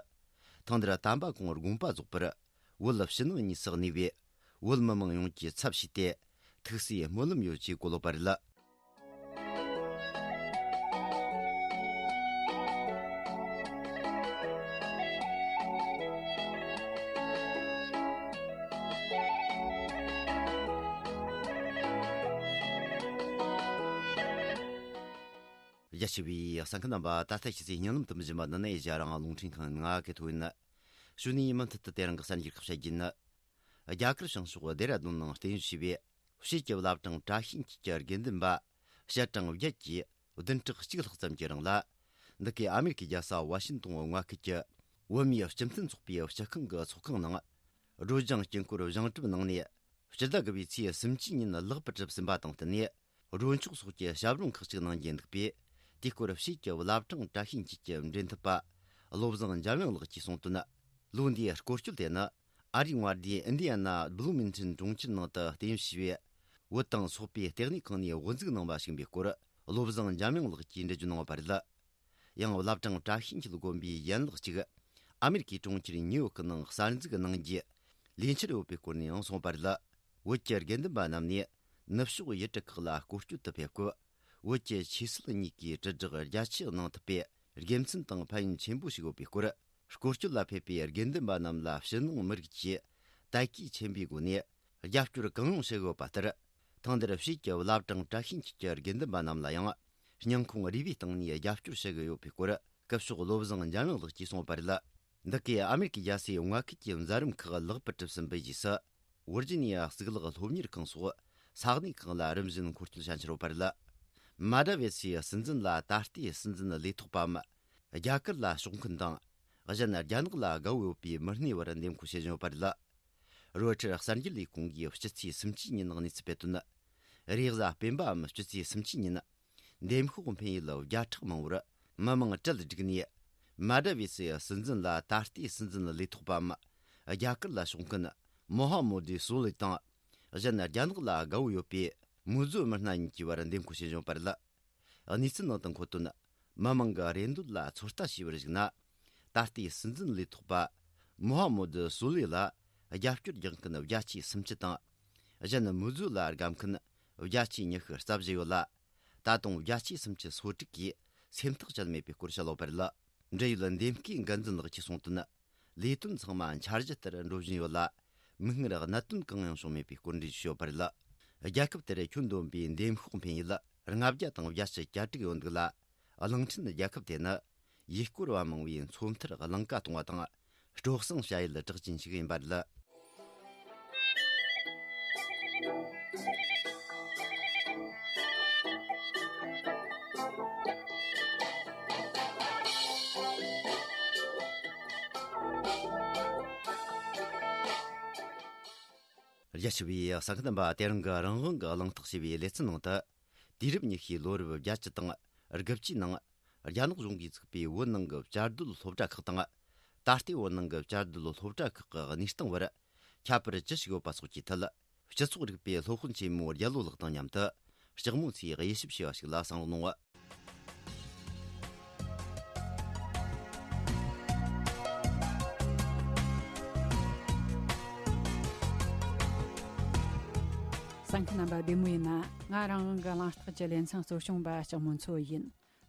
ཐེངས་འདིར་དམ་པ་ཁོང་དགོངས་པ་རྫོགས་པར། བོད་ཕྱི་ནང་གཉིས་སུ་གནས་པའི་བོད་མི་མང་ཡོངས་ཀྱི་ཚབ་བྱས་ཏེ། ཐུགས་སུ་སྨོན་ལམ་ཡོད་ཅེས་གོ་ལོག་པ་རེད། རྒྱ་ཆེ་བའི་གསན་མཁན་རྣམ་པ། ད་ལྟ་ཁྱེད་ཚོས་སྙན་ལམ་དུ་འབྱིན་པ་འདི་ནི་ཨེ་ཤ་ཡ་རང་དབང་རླུང་འཕྲིན་ཁང་ང་གི་ཐོག་ཡིན། ཞུ་ནས་མུ་མཐུད་དུ་དེ་རིང་གི་གསར་འགྱུར་ཁག་བཤད་རྒྱུ་ནི། རྒྱ་གར་བྱང་ཕྱོགས་ལྡེ་ར་ལྡུན་ནང་རྟེན་གཞི་བྱས་པའི་ཕྱིས་ཀྱི་བླ་བྲང་བཀྲ་ཤིས་འཁྱིལ་གྱི་དགེ་འདུན་པ་བཤད་གྲངས་བརྒྱད་ཀྱིས་བདུན་ཕྲག་གཅིག་ལྷག་ཙམ་གྱི་རིང་ལ། འདི་གའི་ཨ་མེ་རི་ཀའི་རྒྱལ་ས་ཝ་ཤིན་ཏོན་མངའ་ཁུལ་གྱི་བོད་མིའི་སྤྱི་མཐུན་ཚོགས་པའི་སྤྱི་ཁང་གི་ཚོགས་ཁང་ནང་། སྒྲོལ་ལྗང་དཀྱིལ་འཁོར་བཞེངས་གྲུབ་གནང་ནས། སྤྱི་ཟླ་དགུ་པའི་ཚེས་སུམ་ཅུ་ཉིན་ལེགས་པར་གྲུབ་ཟིན་པ་དང་བསྟུན་ནས། སྒྲོལ་ཆོག་སོགས་ཀྱི་ཞབས་རིམ་ཁག་ཅིག་གནང་རྒྱུ་འདུག་པས། དེའི་སྐོར་ཕྱིས་ཀྱི་བླ་བྲང་བཀྲ་ཤིས་འཁྱིལ་གྱི་འབྲེལ་མཐུད་པ་བློ་བཟང་འཇམ་དབྱངས་ལགས་ཀྱིས་གསུངས་དོན། ལོ་འདིའི་སྐོར་སྐྱོད་དེ་ནི་ཨ་རིའི་མངའ་སྡེ་ཨིན་ཌི་ཡ་ན་བླུ་མིང་ཊོན་གྲོང་ཁྱེར་ནང་དུ་རྟེན་གཞི་བྱས་པའི་བོད་དང་སོག་པོའི་ལྟེ་གནས་ཁང་ནས་དབུ་འཛུགས་གནང་བ་ཞིག་ཡིན་པའི་སྐོར། བློ་བཟང་འཇམ་དབྱངས་ལགས་ཀྱིས་འགྲེལ་བརྗོད་གནང་བ་རེད། ཡང་བླ་བྲང་བཀྲ་ཤིས་འཁྱིལ་དགོན་པའི་ཡན་ལག་ཅིག་ཨ་མེ་རི་ཀའི་གྲོང་ཁྱེར་ཉིའུ་ཡོག་གི་ནང་གསར་འཛུགས་གནང་རྒྱུའི་ལས་འཆར་ཡོད་པའི་སྐོར་ནས་ཡང་གསུངས་པ་རེད། བོད་ཀྱི་དགེ་འདུན་པ་རྣམས་ནས་ནུབ་ཕྱོགས་ཡུལ་གྲུ་ཁག་ལ་སྐོར་སྐྱོད་དུ་ཕེབས་སྐབས། བོད་ཀྱི་ཆོས་སྲིད་གཉིས་ཀའི་དྲིལ་བསྒྲགས་རྒྱ་ཆེ་གནང་ཐུབ་པའི་དགེ་མཚན་དང་ཕན་ཡོན་ཆེན་པོ་ཞིག་ཡོད་པའི་སྐོར། སྐོར་སྐྱོད་ལ་ཕེབས་པའི་དགེ་འདུན་པ་རྣམས་ལ་ཕྱི་ནང་མི་རིགས་ཀྱི་དད་གུས་ཆེན་པོའི་སྒོ་ནས། རྒྱབ་སྐྱོར་གང་ཡོང་ཞུ་གི་ཡོད་པ་ལྟར། ཐེངས་འདིར་ཕྱིས་ཀྱི་བླ་བྲང་བཀྲ་ཤིས་འཁྱིལ་གྱི་དགེ་འདུན་པ་རྣམས་ལ་ཡང་། སྙིང་ཁོང་རུས་པའི་གཏིང་ནས་རྒྱབ་སྐྱོར་ཞུ་གི་ཡོད་པའི་སྐོར། སྐུ་ཞབས་བློ་བཟང་འཇམ་དབྱངས་ལགས་ཀྱིས་གསུངས་པ་རེད། འདི་གའི་ཨ་མེ་རི་ཀའི་རྒྱལ་སའི་མངའ་ཁུལ་གྱི་མཛད་རིམ་ཁག་ལེགས་པར་གྲུབ་ཟིན་པའི་རྗེས་སུ། ཝིར་ཇི་ནི་ཡ་གཙུག་ལག་སློབ་གཉེར་ཁང་སོགས་ས་གནས་ཁག་ལ་རིམ་བཞིན་འཁོར་སྐྱོད་བྱ་འཆར་ཡོད་པ་རེད། མ་དྲ་བེ་སའི་སྲིད་འཛིན་ལ་ད་ལྟའི་སྲིད་འཛིན་ལས་ཐོག་པའམ། རྒྱ་གར་ལ་ཕྱོགས་མཁན་དང་། གཞན་རྒྱ་ནག་ལ་དགའ་བོ་ཡོད་པའི་མི་སྣའི་བར་འདེམས་བསྐོ་བྱེད་བཞིན་ཡོད་པ་རེད། རོའི་ཊར་གསར་འགྱུར་ལས་ཁུངས་ཀྱིས་སྤྱི་ཚེས་སུམ་ཅུ་ཉིན་གནས་ཚུལ་སྤེལ་དོན། རེས་གཟའ་སྤེན་པའམ་སྤྱི་ཚེས་སུམ་ཅུ་ཉིན། འདེམས་ཤོག་འཕེན་ཡུལ་བརྒྱ་ཕྲག་མང་བོར་མི་མང་གྲལ་བསྒྲིགས་ནས། མ་དྲ་བེ་སི་སྲིད་འཛིན་ལ་ད་ལྟའི་སྲིད་འཛིན་ལས་ཐོག་པའམ། རྒྱ་གར་ལ་ཕྱོགས་མཁན་མོ་ཧ་མོ་དི་སོ་ལི་དང་། གཞན་རྒྱ་ནག་ལ་དགའ་བོ་ཡོད་པའི་མུའུ་ཛུ་མི་སྣ་གཉིས་ཀྱི་བར་འདེམས་བསྐོ་བྱེད་བཞིན་པ་རེད། གནས་ཚུལ་ནང་དུ་འཁོད་དོན། མི་མང་གི་རེ་འདོད་ལ་ཚོད་ལྟ་བྱས་པར་གཞིགས་ན། ད་ལྟའི་སྲིད་འཛིན་ལས་ཐོག་པ་མོ་ཧ་མོ་དི་སུ་ལི་ལ་རྒྱབ་སྐྱོར་རྒྱག་མཁན་བརྒྱ་ཆའི་སུམ་ཅུ་དང་། གཞན་མུའུ་ཛུ་ལ་དགའ་མཁན་བརྒྱ་ཆའི་ཉི་ཤུ་རྩ་བཞི་ཡོད་ལ། ད་དུང་བརྒྱ་ཆའི་སུམ་ཅུ་སོ་དྲུག་གིས་སེམས་ཐག་བཅད་མེད་པའི་སྐོར་བཤད་ཡོད་པ་རེད། འབྲེལ་ཡོད་འདེམས་བསྐོའི་འགན་འཛིན་ལགས་ཀྱིས་གསུངས་དོན། ལས་དོན་ཚང་མ་འཆར་གཞི་ལྟར་འགྲོ་བཞིན་ཡོད་ལ། མིག་སྔར་གནད་དོན་གང་ཡང་བྱུང་མེད་པའི་སྐོར་འགྲེལ་བརྗོད་ཡོད་པ་རེད། རྒྱལ་ཁབ་དེར་ཁྱོན་བསྡོམས་པའི་འདེམས་ཤོག་འཕེན་ཡུལ་ལྔ་བརྒྱ་དང་བརྒྱད་ཅུ་གྱ་དྲུག་ཡོད་འདུག་ལ། གླིང་ཕྲན་རྒྱལ་ཁབ་དེ་ནི་ཡུལ་སྐོར་བ་མང་བའི་མཚོ་མཐར་གླིང་ཀ་གཏོང་བ་དང་སྤྲོ་གསེང་བྱ་ཡུལ་གྲགས་ཅན་ཞིག་ཡིན་པ་རེད། རྒྱ་ཆེ་བའི་གསན་མཁན་རྣམ་པ། དེ་རིང་གི་རང་དབང་གི་གླེང་སྟེགས་ཞེས་པའི་ལེ་ཚན་ནང་དུ། དུས་རབས་ཉི་ཤུའི་ལོ་རབས་བརྒྱད་ཅུ་དང་དགུ་བཅུའི་ནང་རྒྱ་ནག་གཞུང་གིས་བཙུགས་པའི་བོད་ནང་གི་བཅའ་སྡོད་སློབ་གྲྭ་ཁག་དང་། ད་ལྟའི་བོད་ནང་གི་བཅའ་སྡོད་སློབ་གྲྭ་ཁག་གི་གནས་སྟངས་བར་ཁྱད་པར་ཅི་ཞིག་ཡོད་པ་སོགས་ཀྱི་ཐད། སྤྱི་ཚོགས་རིག་པའི་སློབ་དཔོན་ཆེན་མོ་རྒྱལ་ལོ་ལགས་དང་མཉམ་དུ་ལྕགས་མོ་མཚོས་དབྱེ་ཞིབ་བྱས་པ་ཞིག་ལ་གསན་རོགས་གནང་། གསན་མཁན་རྣམ་པ་བདེ་མོ་ཡིན་ན། ང་རང་དབང་གི་གླེང་སྟེགས་ཀྱི་ལེ་ཚན་གཙོ་སྐྱོང་པ་ལྕགས་མོ་མཚོ་ཡིན།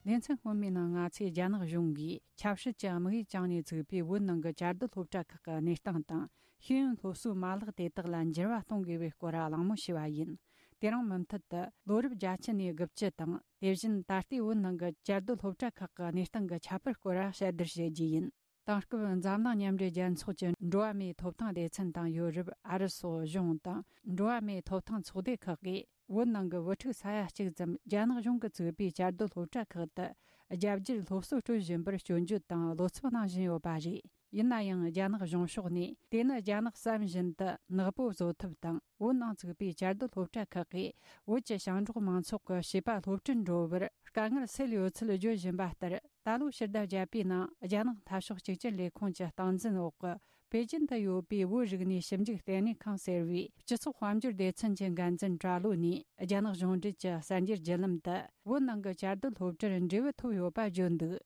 ལེ་ཚན་སྔོན་མའི་ནང་ང་ཚོས་རྒྱ་ནག་གཞུང་གིས་ཆབ་སྲིད་ཀྱི་དམིགས་ཡུལ་བཅངས་ནས་བཙུགས་པའི་བོད་ནང་གི་བཅའ་སྡོད་སློབ་གྲྭ་ཁག་གི་གནས་སྟངས་དང་། ཤེས་ཡོན་སློབ་གསོའི་མ་ལག་དེ་དག་ལ་འགྱུར་བ་གཏོང་དགོས་པའི་སྐོར་གླེང་མོལ་བྱས་པ་ཡིན། དེ་རིང་མུ་མཐུད་དུ་ལོ་རབས་བརྒྱད་ཅུ་ནས་དགུ་བཅུ་དང་། དེ་བཞིན་ད་ལྟའི་བོད་ནང་གི་བཅའ་སྡོད་སློབ་གྲྭ་ཁག་གི་གནས་སྟངས་ཀྱི་ཁྱད་པར་སྐོར་བཤད་བསྡུར་བྱེད་རྒྱུ་ཡིན། དེང་སྐབས་འཛམ་གླིང་མཉམ་འབྲེལ་རྒྱལ་ཚོགས་ཀྱི་འགྲོ་བ་མིའི་ཐོབ་ཐང་སྡེ་ཚན་དང་ཡོ་རོབ། ཨ་རི་སོགས་གཞུང་དང་འགྲོ་བ་མིའི་ཐོབ་ཐང་ཚོགས་སྡེ་ཁག་གིས། བོད་ནང་གི་བུ་ཕྲུག་ས་ཡ་གཅིག་ཙམ་རྒྱ་ནག་གཞུང་གིས་བཙུགས་པའི་བཅའ་སྡོད་སློབ་གྲྭ་ཁག་ཏུ་རྒྱ་བསྒྱུར་སློབ་གསོ་སྤྲོད་བཞིན་པར་སྐྱོན་བརྗོད་དང་བློ་འཚབ་གནང་བཞིན་ཡོད་པ་རེད། ཡིན་ན་ཡང་རྒྱ་ནག་གཞུང་ཕྱོགས་ནས་དེ་ནི་རྒྱ་ནག་བསམ་བཞིན་དུ་ནག་པོ་བཟོ་ཐབས་དང་། བོད་ནང་བཙུགས་པའི་བཅའ་སྡོད་སློབ་གྲྭ་ཁག་གིས་བོད་ཀྱི་ཞིང་འབྲོག་མང་ཚོགས་ཀྱི་བྱིས་པ་སློབ་ཁྲིད་འགྲོ་བར་དཀའ་ངལ་སེལ་ཡོད་ཚུལ་བརྗོད་བཞིན་པ་ལྟར། ད་ལོའི་ཕྱི་ཟླ་བརྒྱད་པའི་ནང་རྒྱ་ནག་འཐབ་ཕྱོགས་གཅིག་གྱུར་ལས་ཁུངས་ཀྱི་སྟངས་འཛིན་འོག་གི་པེ་ཅིན་དུ་ཡོད་པའི་བོད་རིག་གནས་ཞིབ་འཇུག་ལྟེ་གནས་ཁང་ཟེར་བའི་སྤྱི་ཚོགས་དཔལ་འབྱོར་སྡེ་ཚན་གྱི་འགན་འཛིན་གྲྭ་ལོ་ནས། རྒྱ་ནག་གཞུང་འབྲེལ་གྱི་གསར་འགྱུར་བརྒྱུད་ལམ་དུ་བོད་ནང་གི་བཅའ་སྡོད་སློབ་གྲྭར་འབྲས་བུ་ཐོབ་ཡོད་པ་བརྗོད་འདུག།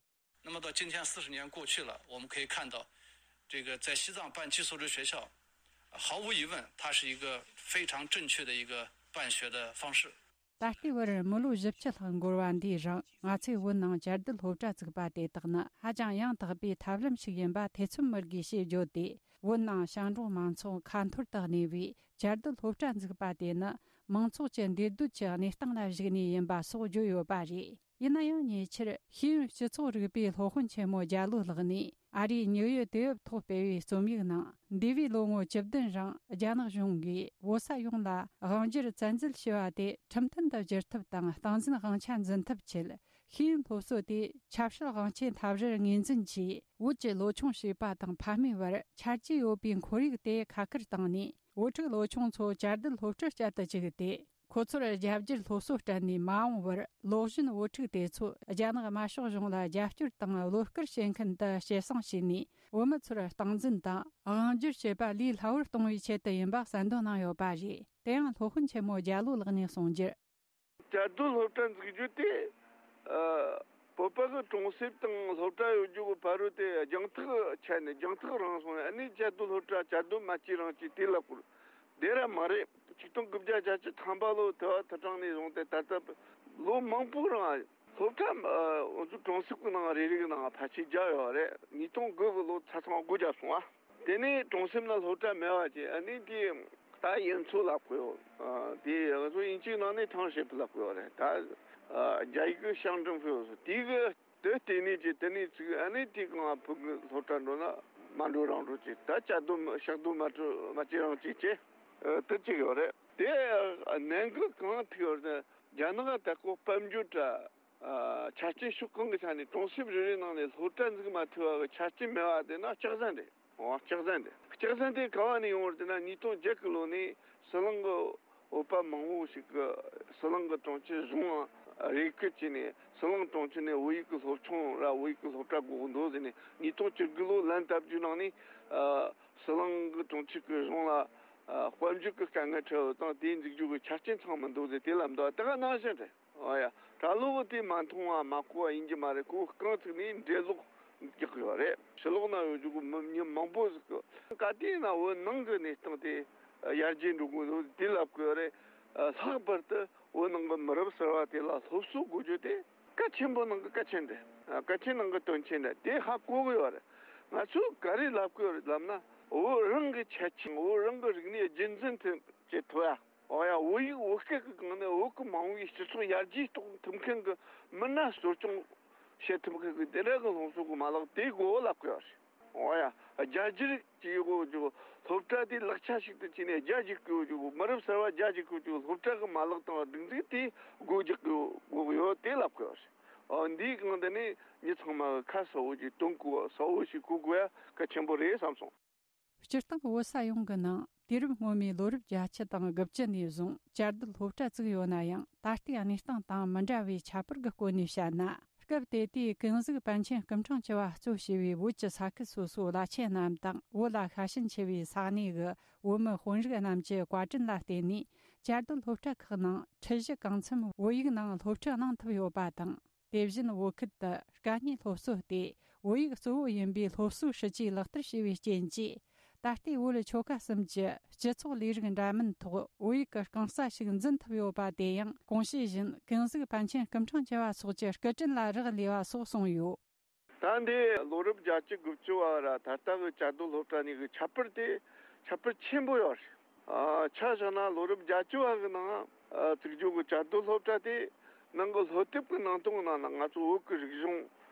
那么到今天四十年过去了，我们可以看到，这个在西藏办寄宿制学校，毫无疑问，它是一个非常正确的一个办学的方式。 ད་ལྟའི་བར་མི་ལོ་བཞི་བཅུ་ལྷག་འགོར་བ་འདིའི་རིང་། ང་ཚོས་བོད་ནང་བཅའ་སྡོད་སློབ་གྲྭ་བཙུགས་པ་དེ་དག་ནི་ཧ་ཅང་ཡང་དག་པའི་ཐབས་ལམ་ཞིག་ཡིན་པ་ཐེ་ཚོམ་མེད་དགོས་ཞེས་བརྗོད་དེ། བོད་ནང་ཞིང་འབྲོག་མང་ཚོགས་ཁ་འཐོར་དུ་གནས་པའི་བཅའ་སྡོད་སློབ་གྲྭ་འཛུགས་པ་དེ་ནི་མང་ཚོགས་ཀྱི་འདུས་སྡོད་ཀྱི་གནས་སྟངས་ལ་གཞིགས་ནས་ཡིན་པ་སོགས་བརྗོད་ཡོད་པ་རེད། ཡིན་ན་ཡང་ཉེ་ཆར་ཤེས་ཡོན་སྤྱི་ཚོགས་རིག་པའི་སློབ་དཔོན་ཆེན་མོ་རྒྱ་ལོ་ལགས་ནས། ཨ་རིའི་ཉིའུ་ཡོག་དུས་བབ་ཐོག་སྤེལ་བའི་རྩོམ་ཡིག་ནང་། འདས་པའི་ལོ་ངོ་བཅུ་བདུན་རིང་རྒྱ་ནག་གཞུང་གིས་བོད་ས་ཡོངས་ལ་དབང་སྒྱུར་བཙན་འཛུལ་བྱས་པ་དེ་ཁྲིམས་མཐུན་དུ་བསྒྱུར་ཐབས་དང་། སྟངས་འཛིན་དབང་ཆ་འཛིན་ཐབས་ཆེད། ཤེས་ཡོན་སློབ་གསོ་དེ་ཆབ་སྲིད་དབང་ཆའི་འཐབ་རར་ངོས་འཛིན་གྱིས། བོད་ཀྱི་ལོ་ཆུང་བྱིས་པ་དང་ཕ་མའི་བར་ཆ་རྒྱུས་ཡོད་པའི་ཁོར་ཡུག་དེ་ཁ་ཁུར་བཏང་ནས། བུ་ཕྲུག་ལོ་ཆུང་ཚོ་བཅའ་སྡོད་སློབ་གྲྭར་བསྐྱལ་དུ་བཅུག་སྟེ། ཁོ་ཚོར་རྒྱ་བསྒྱུར་སློབ་གསོ་སྤྲད་ནས་མ་འོངས་པར་ལོག་གཞོན་བུ་ཕྲུག་དེ་ཚོ་རྒྱ་ནག་དམར་ཤོག་གཞུང་ལ་རྒྱབ་སྐྱོར་དང་བློ་དཀར་བྱེད་མཁན་དུ་སྐྱེད་སྲིང་བྱས་ནས། བུད་མེད་ཚོར་སྟངས་འཛིན་དང་དབང་སྒྱུར་བྱེད་པ་ལས་སླ་བོར་གཏོང་བའི་ཆེད་དུ་ཡིན་པ་གསལ་འདོན་གནང་ཡོད་པ་རེད། དེ་ཡང་སློབ་དཔོན་ཆེན་མོ་རྒྱ་ལོ་ལགས་ནས་གསུངས་རྒྱུར། བཅའ་སྡོད་སློབ་གྲྭ་འཛུགས་རྒྱུ་དེ། ཨ། བོད་པ་གི་གྲོང་གསེབ་དང་སློབ་གྲྭ་ཡོད་རྒྱུ་གི་ཕ་རོལ་དེ་རྒྱང་ཐག་ཆད་ནས་རྒྱང་ཐག་རིང་སོང་ནས། ཨ་ནི་བཅའ་སྡོད་སློབ་གྲྭ་བཅའ་སྡོད་མ་བྱས་རང་བྱས་དེ་ལ་བསྐུར། དེ་ར་མ་རེད། ཆིག་སྟོང་དགུ་བརྒྱ་བརྒྱད་ཅུ་ཐམ་པ་ལོ་དུ་བ་དུ་གྲངས་ནས་བཟུང་སྟེ་ད་ལྟ་ལོ་མང་པོའི་རིང་སློབ་གྲྭ། ཨ། འུ་ཚོའི་གྲོང་གསེབ་ཀྱི་ནང་རེ་རེ་གི་ནང་ཕལ་ཆེར་བརྒྱབ་ཡོད་རེད། ཉིས་སྟོང་དགུ་གི་ལོ་ཆ་ཚང་སྒོ་བརྒྱབ་སོང་ཨ། དེ་ནས་གྲོང་གསེབ་ན་སློབ་གྲྭ་མེད་པ་བྱས། ཨ་ནི་དེ་ད་ཡིན་ཚུལ་ལབ་དགོས་ཡོད། ཨ། དེ་ང་ཚོ་དབྱིན་ཇིའི་ནང་ནས་ཐང་ཧྲེ་ཕུ་ལབ་དགོས་ཡོད་རེད། ད། ཨ། རྒྱ་ཡིག་གི་ཤང་ཀྲང་ཧྥུའུ་སོ་དེ་གི་དེ་ལྟེ་གནས་ཀྱི་དེ་ནས་ཚུགས། ཨ་ནི་དེ་གང་ཕུ་གུ་སློབ་གྲྭ་འགྲོ་ན་མ་འགྲོ་རང་འགྲོ་བྱས། ད་བཅའ་སྡོད་ཤག་སྡོད་མ་འགྲོ་མ་བྱས་རང་བྱས་བྱས། ཨ། དེ་བྱས་ཡོད་རེད། དེ་ནང་གི་གང་ཐུག་ཡོད་རེད། རྒྱ་ནག་ད་ཁོ་དཔལ་འབྱོར་དྲ། ཨ། ཆ་རྐྱེན་ཕྱོགས་གང་གི་ཆ་ནས་གྲོང་གསེབ་རེ་རེའི་ནང་ནས་སློབ་གྲྭ་འཛུགས་མ་ཐུབ་པ་གི་ཆ་རྐྱེན་མེད་པ་དེ་ན་སྐྱག་རྫུན་རེད། འོ། སྐྱག་རྫུན་རེད། སྐྱག་རྫུན་དེ་ག་བ་ནས་ཡོང་བ་རེད་ཟེར་ན། ཉིས་སྟོང་བརྒྱད་གི་ལོ་ནས་ཟི་ལིང་གི་བོད་པ་མང་བོ་ཞིག་གིས་ཟི་ལིང་གི་གྲོང་ཁྱེར་གཞུང་ལ་རེ་སྐུལ་བྱས་ནས། ཟི་ལིང་གྲོང་ཁྱེར་ནས་བོད་ཡིག་གི་སློབ་ཆུང་ར་བོད་ཡིག་གི་སློབ་གྲྭ་དགོས་འདུག་ཟེར་ནས། ཉིས་སྟོང་བཅུ་དགུ་ལོ་ལན་བཏབ་རྒྱུའི་ནང་ནས། ཨ། ཟི་ལིང་གི་གྲོང་ཁྱེར་གྱི་གཞུང་ལ། ཨ། དཔལ་འབྱོར་གྱི་དཀའ་ངལ་འཕྲད་ཡོད་ཙང་དེ་འཛུགས་རྒྱུ་གི་ཆ་རྐྱེན་ཚང་མི་འདུག་ཟེར་དེ་ལབ་འདུག། དེ་ག་ནང་བཞིན་རེད། ཨོ་ཡ། གྲྭ་ལོག་གི་དེ་མ་མཐོང་བ་མ་གོ་བ་ཡིན་གྱི་མ་རེད། ཁོ་རྐང་བཙུགས་ནས་འགྲེལ་ལོག་རྒྱག་གི་ཡོད་རེད། ཕྱི་ལོགས་ན་ཡོད་རྒྱུ་གི་མི་མི་མང་པོ་ཟིག་གི། ག་དུས་ན་བོད་ནང་གི་གནས་སྟངས་དེ་ཡར་རྒྱས་འགྲོ་གི་འདུག་དེ་ལབ་གི་ཡོད་རེད། ལྷག་པར་དུ་བོད་ནང་གི་མི་རབས་གསར་བ་དེ་ལ་སློབ་གསོ་དགོས་རྒྱུ་དེ་གལ་ཆེན་པོ་ནང་གི་གལ་ཆེན་རེད། གལ་ཆེན་ནང་གི་དོན་ཆེན་རེད། དེ་ཧ་གོ་གི་ཡོད་རེད། ང་ཚོས་ག་རེ་ལབ་གི་ཡོད་རེད་ལབ་ན། བོད་རང་གི་ཁྱད་ཆོས། བོད་རང་གི་རིག་གནས་རྒྱུན་འཛིན་ཐུབ་བྱེད་ཐུབ་ཡ། འོ་ཡ། བོད་ཡིག་བོད་སྐད་ཀྱི་སྒང་ནས་བོད་ཀྱི་མ་འོངས་པའི་སྤྱི་ཚོགས་ཡར་རྒྱས་གཏོང་ཐུབ་མཁན་གྱི་མི་སྣ་གསོ་སྐྱོང་བྱེད་ཐུབ་མཁན་གྱི་དེ་འདྲ་གི་སློབ་གསོ་གི་མ་ལག་དེ་དགོས་ལབ་གི་ཡོད་རེད། འོ་ཡ། རྒྱ་སྒྱུར་གྱི་ཡོད་རྒྱུ། སློབ་གྲྭ་དེ་ལག་ཆ་ཞིག་ཏུ་བྱས་ནས་རྒྱ་སྒྱུར་གྱི་ཡོད་རྒྱུ། མི་རབས་གསར་བ་རྒྱ་སྒྱུར་གྱི་ཡོད་རྒྱུ། སློབ་གྲྭ་གི་མ་ལག་དང་སྒྲིག་འཛུགས་དེ་སྒོ་རྒྱག་གི་ཡོད་དགོས་ཡོད་དེ་ལབ་གི་ཡོད་རེད། འོ། འདིའི་སྒང་དེ་ནས་མི་ཚང་མ་གི་ཁ་གསལ་བོ་ཞིག་སྟོན་དགོས། གསལ་བོ་ཞིག་གོ་དགོས་ཡ་གལ་ཆེན་པོ་རེད་བསམ་སོང་། སྤྱིར་བཏང་བོད་ས་ཡོངས་ཀྱི་ནང་དུས་རབས་སྔོན་མའི་ལོ་རབས་བརྒྱད་ཅུ་དང་དགུ་བཅུ་ནས་བཟུང་བཅའ་སྡོད་སློབ་གྲྭ་བཙུགས་ཡོད་ན་ཡང་། ད་ལྟའི་གནས་སྟངས་དང་མི་འདྲ་བའི་ཁྱད་པར་གྱི་སྐོར་ནས་བཤད་ན། སྐབས་དེ་དུས་ཀུན་གཟིགས་པཎ་ཆེན་སྐུ་ཕྲེང་བཅུ་བ་གཙོ་བྱས་པའི་བོད་ཀྱི་ས་ཁུལ་སོ་སོའི་བླ་ཆེན་རྣམས་དང་། བོད་ལ་ཤ་ཞེན་ཆེ་བའི་ས་གནས་ཀྱི་བོད་མི་དཔོན་རིགས་རྣམས་ཀྱི་བཀའ་དྲིན་ལ་བརྟེན་ནས། བཅའ་སྡོད་སློབ་གྲྭ་ཁག་ནང་ཁྲིད་གཞི་གང་འཚམ་བོད་ཡིག་ནང་སློབ་ཁྲིད་གནང་ཐུབ་ཡོད་པ་དང་། དེ་བཞིན་བོད་ཁུལ་དུ་དཀའ་རྙེད་སློབ་གསོ་སྟེ། བོད་ཡིག་གཙོ་བོ་ཡིན་པའི་སློབ་གསོའི་སྲིད་ཇུས་ལག་བསྟར་བྱས་པའི་རྐྱེན་གྱིས། ད་ལྟའི་བོད་ཆོལ་ཁ་གསུམ་གྱི་སྤྱི་ཚོགས་ལས་རིགས་འདྲ་མིན་ཐོག་བོད་ཡིག་གི་རྐང་རྩ་ཞིག་འཛིན་ཐུབ་ཡོད་པ་དེ་ཡང་གོང་ཞུས་བཞིན་ཀུན་གཟིགས་པཎ་ཆེན་སྐུ་ཕྲེང་བཅུ་བ་སོགས་ཀྱི་སྐུ་དྲིན་ལ་རག་ལས་པ་སོགས་གསུངས་ཡོད། ད་འདི་ལོ་རབས་བརྒྱད་ཅུ་དགུ་བཅུ་བ་ར་ད་ལྟ་གི་བཅའ་སྡོད་སློབ་གྲྭ་གཉིས་ཀྱི་ཁྱད་པར་དེ་ཁྱད་པར་ཆེན་པོ་ཡོད་རེད། ཨ། ཆ་བཞག་ན་ལོ་རབས་བརྒྱད་ཅུ་བ་གི་ནང་ཨ། བཙུགས་རྒྱུ་གི་བཅའ་སྡོད་སློབ་གྲྭ་དེ་ནང་གི་སློབ་དེབ་ཀྱི་ནང་དོན་ནང་ན་ང་ཚོ་བོད་ཀྱི་རིག་གཞུང་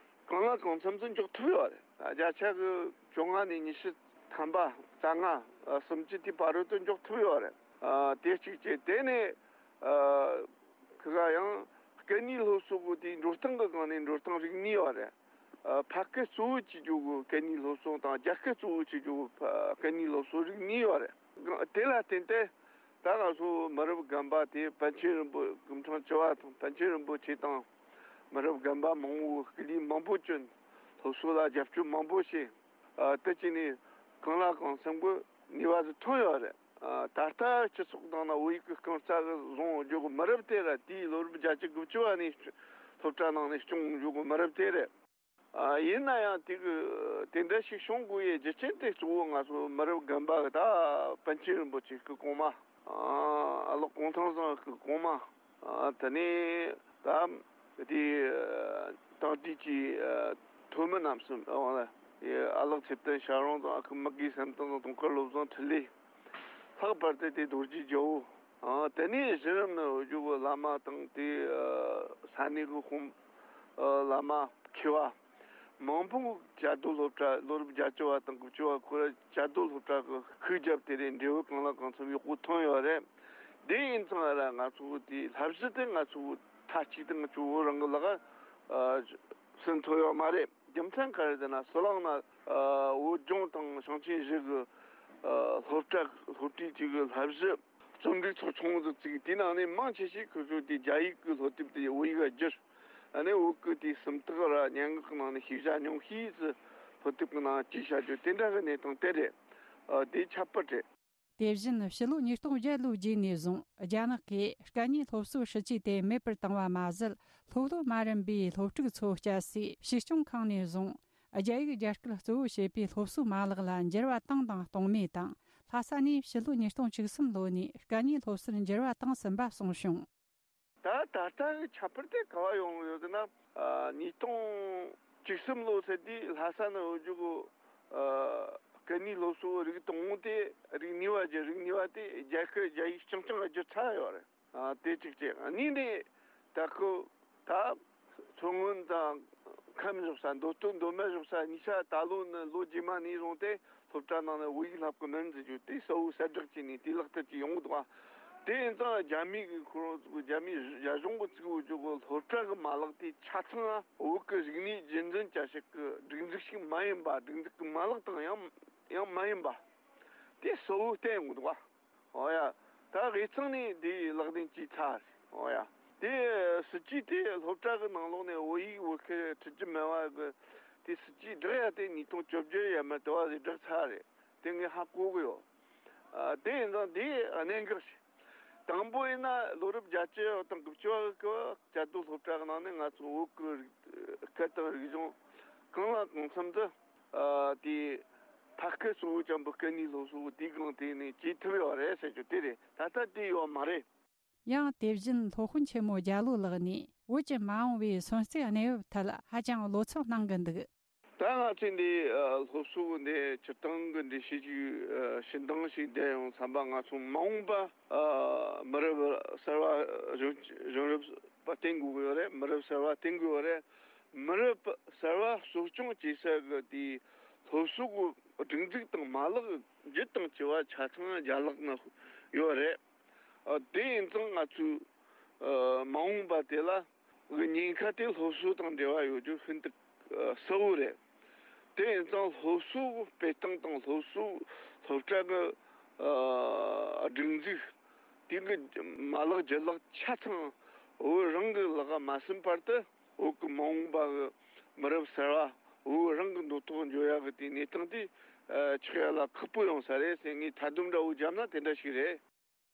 གང་ལ་གང་འཚམ་ཚོ་འཇོག་ཐུབ་ཡོད་རེད། ཨ། བརྒྱ་ཆ་གི་བཅོ་ལྔ་ནས་ཉི་ཤུ་ཐམ་པ་རྩ་ལྔ་ཨ། སུམ་ཅུ་དེ་བར་དུ་འཇོག་ཐུབ་ཡོད་རེད། ཨ། དེ་གཅིག་བྱས། དེ་ནས་ཨ། ཁི་ག་ཡང་སྐད་གཉིས་སློབ་གསོ་གི་དེའི་འགྲོ་སྟངས་ཀྱི་སྒང་ནས་འགྲོ་སྟངས་རིགས་གཉིས་ཡོད་རེད། ཨ། ཕ་སྐད་གཙོ་བོ་བྱེད་རྒྱུ་གི་སྐད་གཉིས་སློབ་གསོ་དང་རྒྱ་སྐད་གཙོ་བོ་བྱེད་རྒྱུ་གི་ཕ་སྐད་གཉིས་སློབ་གསོ་རིགས་གཉིས་ཡོད་རེད། དེ་ལ་བརྟེན་ཏེ་ད་ང་ཚོ་མི་རབས་རྒན་པ་དེ་པཎ་ཆེན་རིན་པོ་སྐུ་ཕྲེང་བཅུ་བ་དང་པཎ་ཆེན་རིན་པོ་ཆེ་དང་མི་རབས་རྒན་པ་མང་བོ་སྐུ་ལས་མང་པོ་བསྐྱོན། སློབ་གསོ་ལ་རྒྱབ་སྐྱོར་མང་པོ་བྱས། ཨ། དེ་བྱས་ནས་གང་ལ་གང་འཚམ་གྱི་ནུས་པ་ཟིག་ཐོན་ཡོད་རེད། ཨ། ད་ལྟ་སྤྱི་ཚོགས་ནང་ན་བོད་ཡིག་གི་རྐང་རྩ་གི་བཟུང་འཇོག་གི་མི་རབས་དེ་ར་དེའི་ལོ་རབས་བརྒྱད་ཅུ་དགུ་བཅུ་བ་ནས་སློབ་གྲྭ་ནང་ནས་སྐྱོང་འཇོག་གི་མི་རབས་དེ་རེད། ཨ། ཡིན་ན་ཡང་དེ་གི་དེ་འདྲ་ཞིག་བྱུང་དགོས་ཡའི་རྒྱུ་རྐྱེན་དེ་གཙོ་བོ་ང་ཚོ་མི་རབས་རྒན་པ་གི་ད་པཎ་ཆེན་རིན་པོ་ཆེ་སྐུ་གོང་མ། ཨ། ཨ་ལགས་གུང་ཐང་བཟང་སྐུ་གོང་མ། ཨ། དེ་ནས་ད་དེ་དང་དེ་གྱི་ཐོན་མི་རྣམས་སུ། ཨ། ཨ་ལགས་ཚེ་བརྟན་ཞབས་དྲུང་དང་ཨ་ཁུ་མི་དགེ་བསམ་གཏན་དང་དུང་དཀར་བློ་བཟང་འཕྲིན་ལས། ལྷག་པར་དུ་དེ་རྡོ་རྗེ་རྒྱལ་པོ། ཨ། དེ་ནས་གཞི་རིམ་ནི་འོས་བསྡུ་གི་བླ་མ་དང་དེ་ས་གནས་གི་དཔོན་བླ་མ་མཁས་པ་མང་པོ་བཅའ་སྡོད་སློབ་གྲྭ་ལོ་རབས་བརྒྱད་ཅུ་བ་དང་དགུ་བཅུ་བ་ཁོ་ར་བཅའ་སྡོད་སློབ་གྲྭ་གི་ཤུགས་རྒྱབ་དེ་རེད། འབྲས་བུ་གང་ལ་གང་འཚམ་ཡག་པོ་ཐོན་ཡོད་རེད། དེ་ཡིན་ཙང་ར་ང་ཚོ་དེ་བསླབ་གཞི་དེ་ང་ཚོ་མཐའ་གཅིག་ཏུ་ང་ཚོ་བོད་རང་གི་ལག་ཨ་ཟིན་ཐུབ་ཡོད་མ་རེད། རྒྱུ་མཚན་ག་རེ་ཟེར་ན་ཟི་ལིང་ན་ཨ་བོད་ལྗོངས་དང་ཞིང་ཆེན་བཞི་གི་ཨ་སློབ་གྲྭ་སློབ་གྲྭའི་གཅིག་གི་བསླབ་གཞི་རྩོམ་སྒྲིག་ཚོགས་ཆུང་དུ་བཙུགས། དེའི་ནང་ནས་མང་ཆེ་ཞིག་ཁོ་ཚོས་དེ་རྒྱ་ཡིག་གི་སློབ་དེབ་དེ་བོད་ཡིག་ལ་བསྒྱུར། ཨ་ནི་བོད་ཀྱི་དེ་སུམ་རྟགས་ར་སྙན་ངག་གི་ནང་ནས་ཤེས་བྱ་ཉུང་ཤས་ཙི་སློབ་དེབ་ཀྱི་ནང་བྲིས་བྱ་རྒྱུ་དེ་འདྲ་གི་གནས་སྟངས་དེ་རེད། ཨ་དེ་ཁྱད་པར་རེད། དེ་བཞིན་ཕྱི་ལོ་ཉིས་སྟོང་བརྒྱད་ལོའི་རྗེས་ནས་བཟུང་རྒྱ་ནག་གིས་སྐད་གཉིས་སློབ་གསོའི་སྲིད་ཇུས་དེ་མེད་པར་བཏང་བ་མ་ཟད། སློབ་སློབ་མ་རན་པའི་སློབ་ཕྲུག་ཚོ་བསྐྱལ་སའི་གཞིས་སྐྱོང་ཁང་ནས་བཟུང་རྒྱ་ཡིག་རྒྱ་སྐད་གཙོ་བོ་བྱེད་པའི་སློབ་གསོའི་མ་ལག་ལ་འགྱུར་བ་བཏང་དང་གཏོང་མུས་དང་། ལྷ་ས་ནས་ཕྱི་ལོ་ཉིས་སྟོང་བཅུ་གསུམ་ལོ་ནས་སྐད་གཉིས་སློབ་གསོར་འགྱུར་བ་བཏང་ཟིན་པ་གསུངས་བྱུང་། ད་ད་ལྟ་གི་ཁྱད་པར་དེ་ག་བ་ཡོང་ཡོད་ཟེར་ན། ཨ་ཉིས་སྟོང་བཅུ་གསུམ་ལོ་ཟེར་དུས་ལྷ་ས་ནས་འོས་རྒྱུ་གི་ཨ་སྐད་གཉིས་སློབ་གསོ་རིགས་དང་པོ་དེ་རིགས་གཉིས་པ་བརྒྱུད། རིགས་གཉིས་པ་དེ་རྒྱ་སྐད་རྒྱ་ཡིག་རྐྱང་རྐྱང་ལ་བསྒྱུར་ཚར་ཡོད་རེད། ཨ་དེ་གཅིག་བྱས། གཉིས་ནས་ད་ཁོ་ད་མཚོ་སྔོན་དང་ཁམས་བཞག་ས། མདོ་སྟོད་མདོ་སྨད་བཞག་ས་གཉིས་ཆ་ད་ལོ་ནི་ལོ་རྗེས་མ་ནས་བཟུང་སྟེ་སློབ་གྲྭ་ནང་ནས་བོད་ཡིག་བསླབ་གི་མིན་ཟེར་རྒྱུ་དེ་གསལ་བོ་གསལ་བསྒྲགས་བྱས་ནས་དེ་ལག་བསྟར་གྱི་ཡོང་གི་འདུག་ག་དེ་ཡིན་ཙང་རྒྱ་མི་གི་ཁོ་རང་ཚོ་རྒྱ་མི་རྒྱ་གཞུང་གི་བཙུགས་ཡོད་རྒྱུ་གི་སློབ་གྲྭ་གི་མ་ལག་དེ་ཆ་ཚང་བོད་ཀྱི་རིག་གནས་རྒྱུན་འཛིན་བྱ་བྱེད་ཀྱི་སྒྲིག་འཛུགས་ཤིག་མ་ཡིན་པ། སྒྲིག་འཛུགས་ཀྱི་མ་ལག་དང་ཡང་ཡང་མ་ཡིན་པ་དེ་གསལ་བོ་བསྟན་ཡོང་གི་འདུག་ག་ཨོ་ཡ། ད་དབུས་གཙང་ནས་འདི་ལག་ལེན་བྱས་ཚར་རེད། ཨོ་ཡ། དེ་སྲིད་ཇུས་དེ་སློབ་གྲྭ་གི་ནང་ལོགས་ནས་བོད་ཡིག་བོད་སྐད་ཁྲིད་རྒྱུ་མེད་པ་གི་དེ་སྲིད་ཇུས་བསྒྲགས་ཡ་དེ་ཉིས་སྟོང་བཅོ་བརྒྱད་ཡར་མར་དེ་བ་ཟིག་བསྒྲགས་ཚར་རེད། དེ་ངས་ཧ་གོ་གི་ཡོད། ཨ་དེ་ཡིན་ཙང་དེ་གནད་འགག་ཞིག་དང་པོ་ཡིན་ན་ལོ་རབས་བརྒྱད་ཅུ་དང་དགུ་བཅུ་བ་གི་སྐབས་བཅའ་སྡོད་སློབ་གྲྭ་གི་ནང་ནས་ང་ཚོ་བོད་ཀྱི་རིག་སྐད་དང་རིག་གཞུང་གང་ལ་གང་འཚམ་དུ། ཨ་དེ་ཕ་སྐད་གཙོ་བོ་ཅན་པོ་སྐད་གཉིས་སློབ་གསོ་དེའི་སྒང་དེ་ནས་བྱེད་ཐུབ་ཡོད་རེད་ཟེར་རྒྱུ་དེ་རེད། ད་ལྟ་དེ་ཡོད་མ་རེད། ཡང་དེ་བཞིན་སློབ་དཔོན་ཆེན་མོ་རྒྱ་ལོ་ལགས་ནས་བོད་ཀྱི་མ་འོངས་པའི་སོན་རྩིས་གནས་བབ་ཐད་ཧ་ཅང་བློ་འཚབ་གནང་གི་འདུག་ད་ང་ཚོས་འདི་ཨ་སློབ་གསོ་གི་འདི་སྤྱིར་བཏང་གི་འགྲེལ་བཤད་ཅིག་ཨ་ཞུ་འདང་ཞིག་བསྡད་ཡོང་བསམ་པ། ང་ཚོ་མ་འོངས་པ་ཨ་མི་རབས་གསར་བ་གཞོན་གཞོན་རབས་པ་བསྟེན་དགོས་ཀྱི་ཡོད་རེད། མི་རབས་གསར་བ་བསྟེན་དགོས་ཡོད་རེད། མི་རབས་གསར་བ་གསོ་སྐྱོང་བྱེད་ས་གི་དེའི་སློབ་གསོ་གི་སྒྲིག་འཛུགས་དང་མ་ལག་བརྒྱུད་དང་བཅས་པ་ཆ་ཚང་རྒྱ་ལག་ན་ཡོད་རེད། ཨ་དེ་ཡིན་ཙང་ང་ཚོས་ཨ་མ་འོངས་པ་དེ་ལ་གི་ཉེན་ཁ་དེ་སློབ་གསོ་དང་འབྲེལ་བ་ཡོད་རྒྱུ་ཤིན་ཏུ་ཨ་གསལ་བོ་རེད། དེ་ཡིན་ཙང་སློབ་གསོ་སྤེལ་སྟངས་དང་སློབ་གསོ་སློབ་གྲྭ་གི་ཨ་སྒྲིག་འཛུགས་དེ་གི་མ་ལག་རྒྱུ་ལག་ཆ་ཚང་བོད་རང་གི་ལག་ག་མ་ཟིན་བར་དུ་བོད་ཀྱི་མ་འོངས་པ་གི་མི་རབས་གསར་བ་བོད་རང་གི་འདོད་ཐོག་འགྱོ་ཡག་གི་དེ་གནས་སྟངས་དེ་ཨ་ཆགས་ཡག་ལ་ཁག་པོ་ཡོང་ས་རེད་ཟེར། ངས་མཐའ་སྡོམ་འདྲ་བོ་བརྒྱབ་ན་དེ་འདྲ་ཞིག་རེད།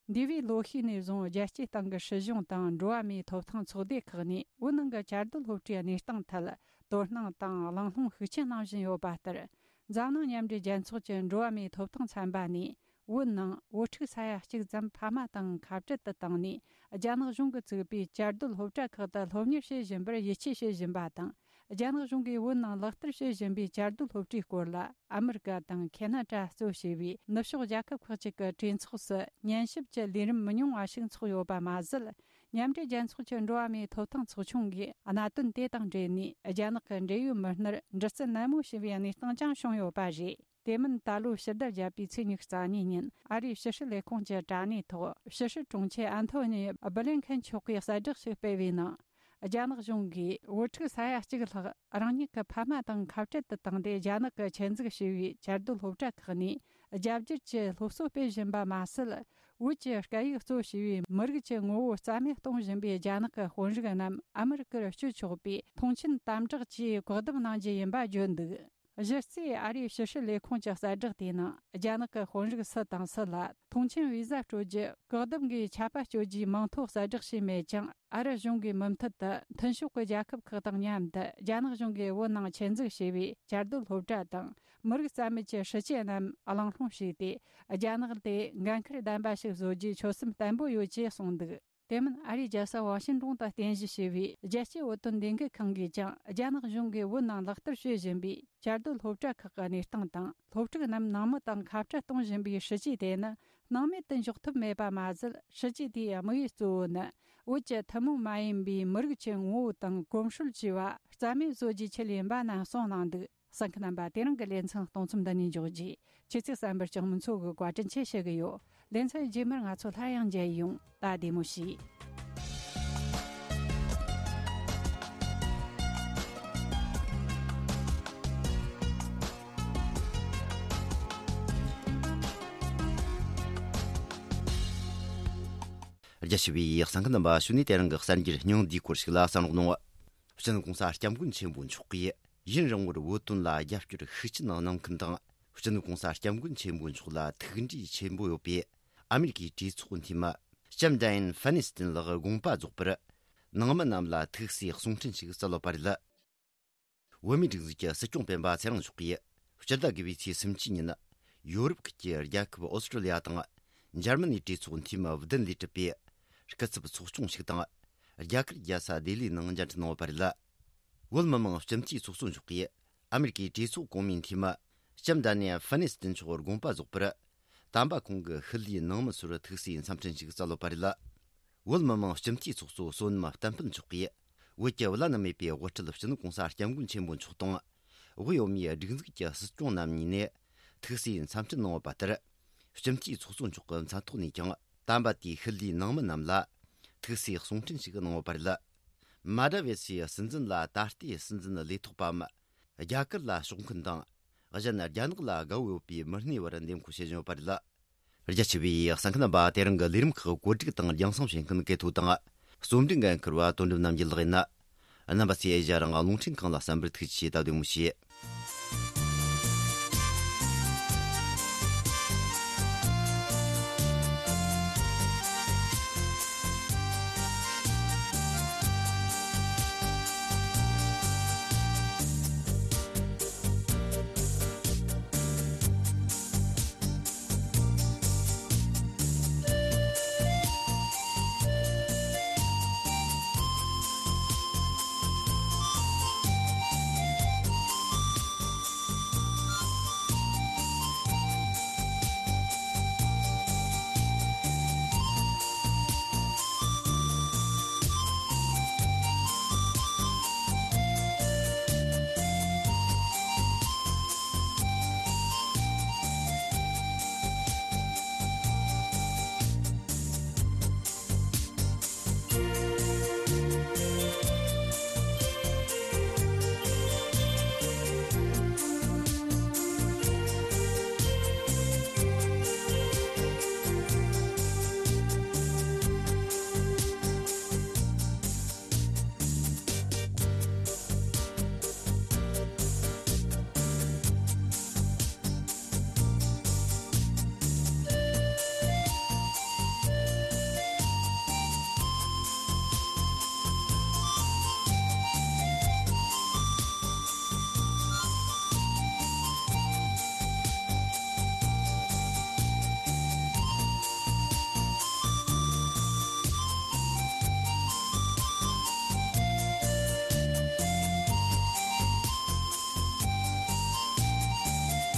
འདས་པའི་ལོ་ཤས་ནས་བཟུང་རྒྱལ་སྤྱིའི་སྟེང་གི་སྲིད་གཞུང་དང་འགྲོ་བ་མིའི་ཐོབ་ཐང་ཚོགས་སྡེ་ཁག་ནས་བོད་ནང་གི་བཅའ་སྡོད་སློབ་གྲྭའི་གནས་སྟངས་ཐད་དོ་སྣང་དང་གླེང་སློང་ཤུགས་ཆེ་གནང་བཞིན་ཡོད་པ་ལྟར། འཛམ་གླིང་མཉམ་འབྲེལ་རྒྱལ་ཚོགས་ཀྱི་འགྲོ་བ་མིའི་ཐོབ་ཐང་ཚན་པ་ནས། བོད་ནང་བོད་ཕྲུག་ས་ཡ་གཅིག་ཙམ་ཕ་མ་དང་ཁ་བྲལ་དུ་བཏང་ནས། རྒྱ་ནག་གཞུང་གིས་བཙུགས་པའི་བཅའ་སྡོད་སློབ་གྲྭ་ཁག་ཏུ་སློབ་གཉེར་བྱེད་བཞིན་པར་ཡིད་ཆེས་བྱེད་བཞིན་པ་དང་། རྒྱ་ནག་གཞུང་གིས་བོད་ནང་ལག་བསྟར་བྱེད་བཞིན་པའི་བཅའ་སྡོད་སློབ་གྲྭའི་སྐོར་ལ། ཨ་མི་རི་ཀ་དང་ཁེ་ན་ཌ་གཙོ་བྱས་པའི་ནུབ་ཕྱོགས་རྒྱལ་ཁབ་ཁག་ཅིག་གི་གྲོས་ཚོགས་སུ་ཉན་ཞིབ་ཀྱི་ལས་རིམ་མི་ཉུང་བ་ཞིག་འཚོགས་ཡོད་པ་མ་ཟད། མཉམ་འབྲེལ་རྒྱལ་ཚོགས་ཀྱི་འགྲོ་བ་མིའི་ཐོབ་ཐང་ཚོགས་ཆུང་གིས་གནད་དོན་དེ་དང་འབྲེལ་ནས། རྒྱ་ནག་གི་འབྲེལ་ཡོད་མི་སྣར་འདྲི་རྩད་ནན་མོ་བྱས་པའི་གནས་སྟངས་ཀྱང་བྱུང་ཡོད་པ་རེད། དེ་མིན། ད་ལོའི་ཕྱི་ཟླ་བརྒྱད་པའི་ཚེས་ཉི་ཤུ་རྩ་གཉིས་ཉིན། ཨ་རིའི་ཕྱི་སྲིད་ལས་ཁུངས་ཀྱི་དྲ་གནས་ཐོག་ཕྱི་སྲིད་དྲུང་ཆེ་ཨན་ཐོ་ནི་སྦི་ལིན་ཁན་མཆོག་གིས་གསལ་བསྒྲགས་ཤིག་སྤེལ་བའི་ནང་། རྒྱ་ནག་གཞུང་གིས་བོད་ཕྲུག་ས་ཡ་གཅིག་ལྷག་རང་ཉིད་ཀྱི་ཕ་མ་དང་ཁ་བྲལ་དུ་བཏང་སྟེ། རྒྱ་ནག་གིས་ཆེད་འཛུགས་བྱས་པའི་བཅའ་སྡོད་སློབ་གྲྭ་ཁག་ནས་རྒྱ་བསྒྱུར་གྱི་སློབ་གསོ་སྤེལ་བཞིན་པ་མ་ཟད། བོད་ཀྱི་སྐད་ཡིག་གཙོ་བྱས་པའི་མི་རིགས་ཀྱི་ངོ་བོ་རྩ་མེད་གཏོང་བཞིན་པའི་རྒྱ་ནག་གི་དཔོན་རིགས་རྣམས་ཨ་མི་རི་ཀར་བསྐྱོད་ཆོག་པའི་མཐོང་མཆན་དམ་དྲག་གིས་བཀག་སྡོམ་གནང་རྒྱུ་ཡིན་པ་བརྗོད་འདུག་གཞི་རྩའི་ཨ་རིའི་ཕྱི་སྲིད་ལས་ཁུངས་ཀྱི་གསལ་བསྒྲགས་དེའི་ནང་། རྒྱ་ནག་གི་དཔོན་རིགས་སུ་དང་སུ་ལ་མཐོང་མཆན་བི་ཟ་སྤྲོད་རྒྱུ། བཀག་སྡོམ་གྱི་ཆད་པ་གཅོད་རྒྱུའི་མིང་ཐོ་གསལ་བསྒྲགས་བྱས་མེད་ཀྱང་། ཨ་རི་གཞུང་གིས་མུ་མཐུད་དུ་མཐུན་ཕྱོགས་ཀྱི་རྒྱལ་ཁབ་ཁག་དང་མཉམ་དུ། རྒྱ་ནག་གཞུང་གིས་བོད་ནང་ཆེད་འཛུགས་བྱས་པའི་བཅའ་སྡོད་སློབ་གྲྭ་དང་། མི་རིགས་རྩ་མེད་ཀྱི་སྲིད་བྱུས་རྣམས་གླེང་སློང་བྱས་ཏེ། རྒྱ་ནག་དེ་འགན་འཁུར་ལྡན་པ་ཞིག་བཟོ་རྒྱུའི་ཆོད་སེམས་བརྟན་པོ་ཡོད་ཅེས་གསུངས་འདུག་དེ་མིན། ཨ་རིའི་རྒྱལ་ས་ཝ་ཤིང་ཏོན་དུ་རྟེན་གཞི་བྱས་པའི་རྒྱལ་སྤྱིའི་བོད་དོན་ལས་འགུལ་ཁང་གིས་ཀྱང་། རྒྱ་ནག་གཞུང་གིས་བོད་ནང་ལག་བསྟར་བྱེད་བཞིན་པའི་བཅའ་སྡོད་སློབ་གྲྭ་ཁག་གི་གནས་སྟངས་དང་། སློབ་ཕྲུག་རྣམས་ནང་མི་དང་ཁ་བྲལ་གཏོང་བཞིན་པའི་སྲིད་བྱུས་དེ་ནི་སྣང་མེད་དུ་འཇོག་ཐུབ་མེད་པ་མ་ཟད། སྲིད་བྱུས་དེའི་དམིགས་ཡུལ་གཙོ་བོ་ནི། བོད་ཀྱི་ཐུན་མོང་མ་ཡིན་པའི་མི་རིགས་ཀྱི་ངོ་བོ་དང་གོམས་སྲོལ་བཅས་པ་རྩ་མེད་བཟོ་རྒྱུའི་ཆེད་ཡིན་པ་རྣམས་གསུངས་གནང་འདུག་གསན་མཁན་རྣམ་པ། དེ་རིང་གི་ལེ་ཚན་གཏོང་མཚམས་འདི་ནས་འཇོག་རྒྱུ། ཁྱེད་ཚོས་གསན་པར་ལྕགས་མོ་མཚོ་གིས་བཀའ་དྲིན་ཆེ་ཞུ་གི་ཡོད། ལེ་ཚན་རྗེས་མར་ང་ཚོ་སླར་ཡང་མཇལ་ཡོང་། ད་བདེ་མོ་བྱོས། རྒྱ་ཆེ་བའི་གསན་མཁན་རྣམ་པ། ཞུ་ནས་དེ་རིང་གི་གསར་འགྱུར་སྙིང་བསྡུས་སྐོར་ཞིག་ལ་གསན་རོགས་གནང་། སྤྱི་ནོར་གོང་ས་སྐྱབས་མགོན་ཆེན་པོ་མཆོག་གིས་ཡུན་རིང་བོར་བོད་དོན་ལ་རྒྱབ་སྐྱོར་ཤུགས་ཆེན་གནང་མཁན་དང་། སྤྱི་ནོར་གོང་ས་སྐྱབས་མགོན་ཆེན་པོ་མཆོག་ལ་ཐུགས་འདྲིས་ཆེན་པོ་ཡོད་པའི་ཨ་མི་རི་ཀའི་གྲོས་ཚོགས་འཐུས་མི་ལྕམ་ཌ་ཡན་ཧྥ་ནི་སྟན་ལགས་དགོངས་པ་རྫོགས་པར། ནང་མི་རྣམས་ལ་ཐུགས་སྲས་གསུང་འཕྲིན་ཞིག་སྩལ་ཡོད་པ་རེད། བོད་མིའི་སྒྲིག་འཛུགས་ཀྱི་སྲིད་སྐྱོང་སྤེན་པ་ཚེ་རིང་མཆོག་གིས་སྤྱི་ཟླ་དགུ་པའི་ཚེས་སུམ་ཅུ་ཉིན། ཡོ་རོབ་ཁུལ་གྱི་རྒྱལ་ཁབ་ཨོ་སི་ཀྲོ་ལི་ཡ་དང་འཇར་མ་ནིའི་གྲོས་ཚོགས་འཐུས་མི་བདུན་ལས་གྲུབ་པའི་སྐུ་ཚབ་ཚོགས་ཆུང་ཞིག་དང་། རྒྱ་གར་རྒྱལ་ས་ལྡི་ལིའི་ནང་མཇལ་འཕྲད་གནང་ཡོད་པ་རེད། བོད་མི་མང་སྤྱི་འཐུས་ཚོགས་གཙོ་མཆོག་གིས་ཨ་མི་རི་ཀའི་གྲོས་ཚོགས་གོང་མའི་འཐུས་མི་ལྕམ་ཌ་ནི་ཧྥ་ནི་སྟན་མཆོག་དགོངས་པ་རྫོགས་པར། དམ་པ་ཁོང་གི་ཤུལ་ལུས་ནང་མི་ཚོར་ཐུགས་སྲས་འཚམས་འཕྲིན་ཞིག་སྩལ་ཡོད་པ་རེད། བོད་མི་མང་སྤྱི་འཐུས་ཚོགས་གཙོ་བསོད་ནམས་བསྟན་འཕེལ་མཆོག་གིས། བོད་ཀྱི་བླ་ན་མེད་པའི་དབུ་ཁྲིད་སྤྱི་ནོར་གོང་ས་སྐྱབས་མགོན་ཆེན་པོ་མཆོག་དང་། དབུས་བོད་མིའི་སྒྲིག་འཛུགས་ཀྱི་སྲིད་སྐྱོང་རྣམ་གཉིས་ནས་ཐུགས་སྲས་འཚམས་འཕྲིན་གནང་ཡོད་པ་ལྟར། སྤྱི་འཐུས་ཚོགས་གཙོ་མཆོག་གི་མཚན་ཐོག་ནས་ཀྱང་། དམ་པ་དེའི་ཤུལ་ལུས་ནང་མི་རྣམས་ལ་ཐུགས་སྲས་གསུང་འཕྲིན་ཞིག་གནང་ཡོད་པ་རེད། མ་དྲ་བེ་སིའི་སྲིད་འཛིན་ལ་ད་ལྟའི་སྲིད་འཛིན་ལས་ཐོག་པའམ། རྒྱ་གར་ལ་ཕྱོགས་མཁན་དང་། གཞན་རྒྱ་ནག་ལ་དགའ་བོ་ཡོད་པའི་མི་སྣའི་བར་འདེམས་བསྐོ་བྱེད་བཞིན་ཡོད་པ་རེད། རྒྱ་ཆེ་བའི་གསན་མཁན་རྣམ་པ། དེ་རིང་གི་ལས་རིམ་ཁག་གོ་སྒྲིག་དང་རྒྱང་སྲིང་བྱེད་མཁན་སྐལ་ཐོ་དང་། རྩོམ་སྒྲིག་འགན་འཁུར་བ་དོན་གྲུབ་རྣམ་རྒྱལ་ལགས་ཡིན། རྣམ་པ་ཚོས་ཨེ་ཤ་ཡ་རང་དབང་རླུང་འཕྲིན་ཁང་ལ་གསན་པར་ཐུགས་རྗེ་ཆེ། ད་བདེ་མོ་བྱོས།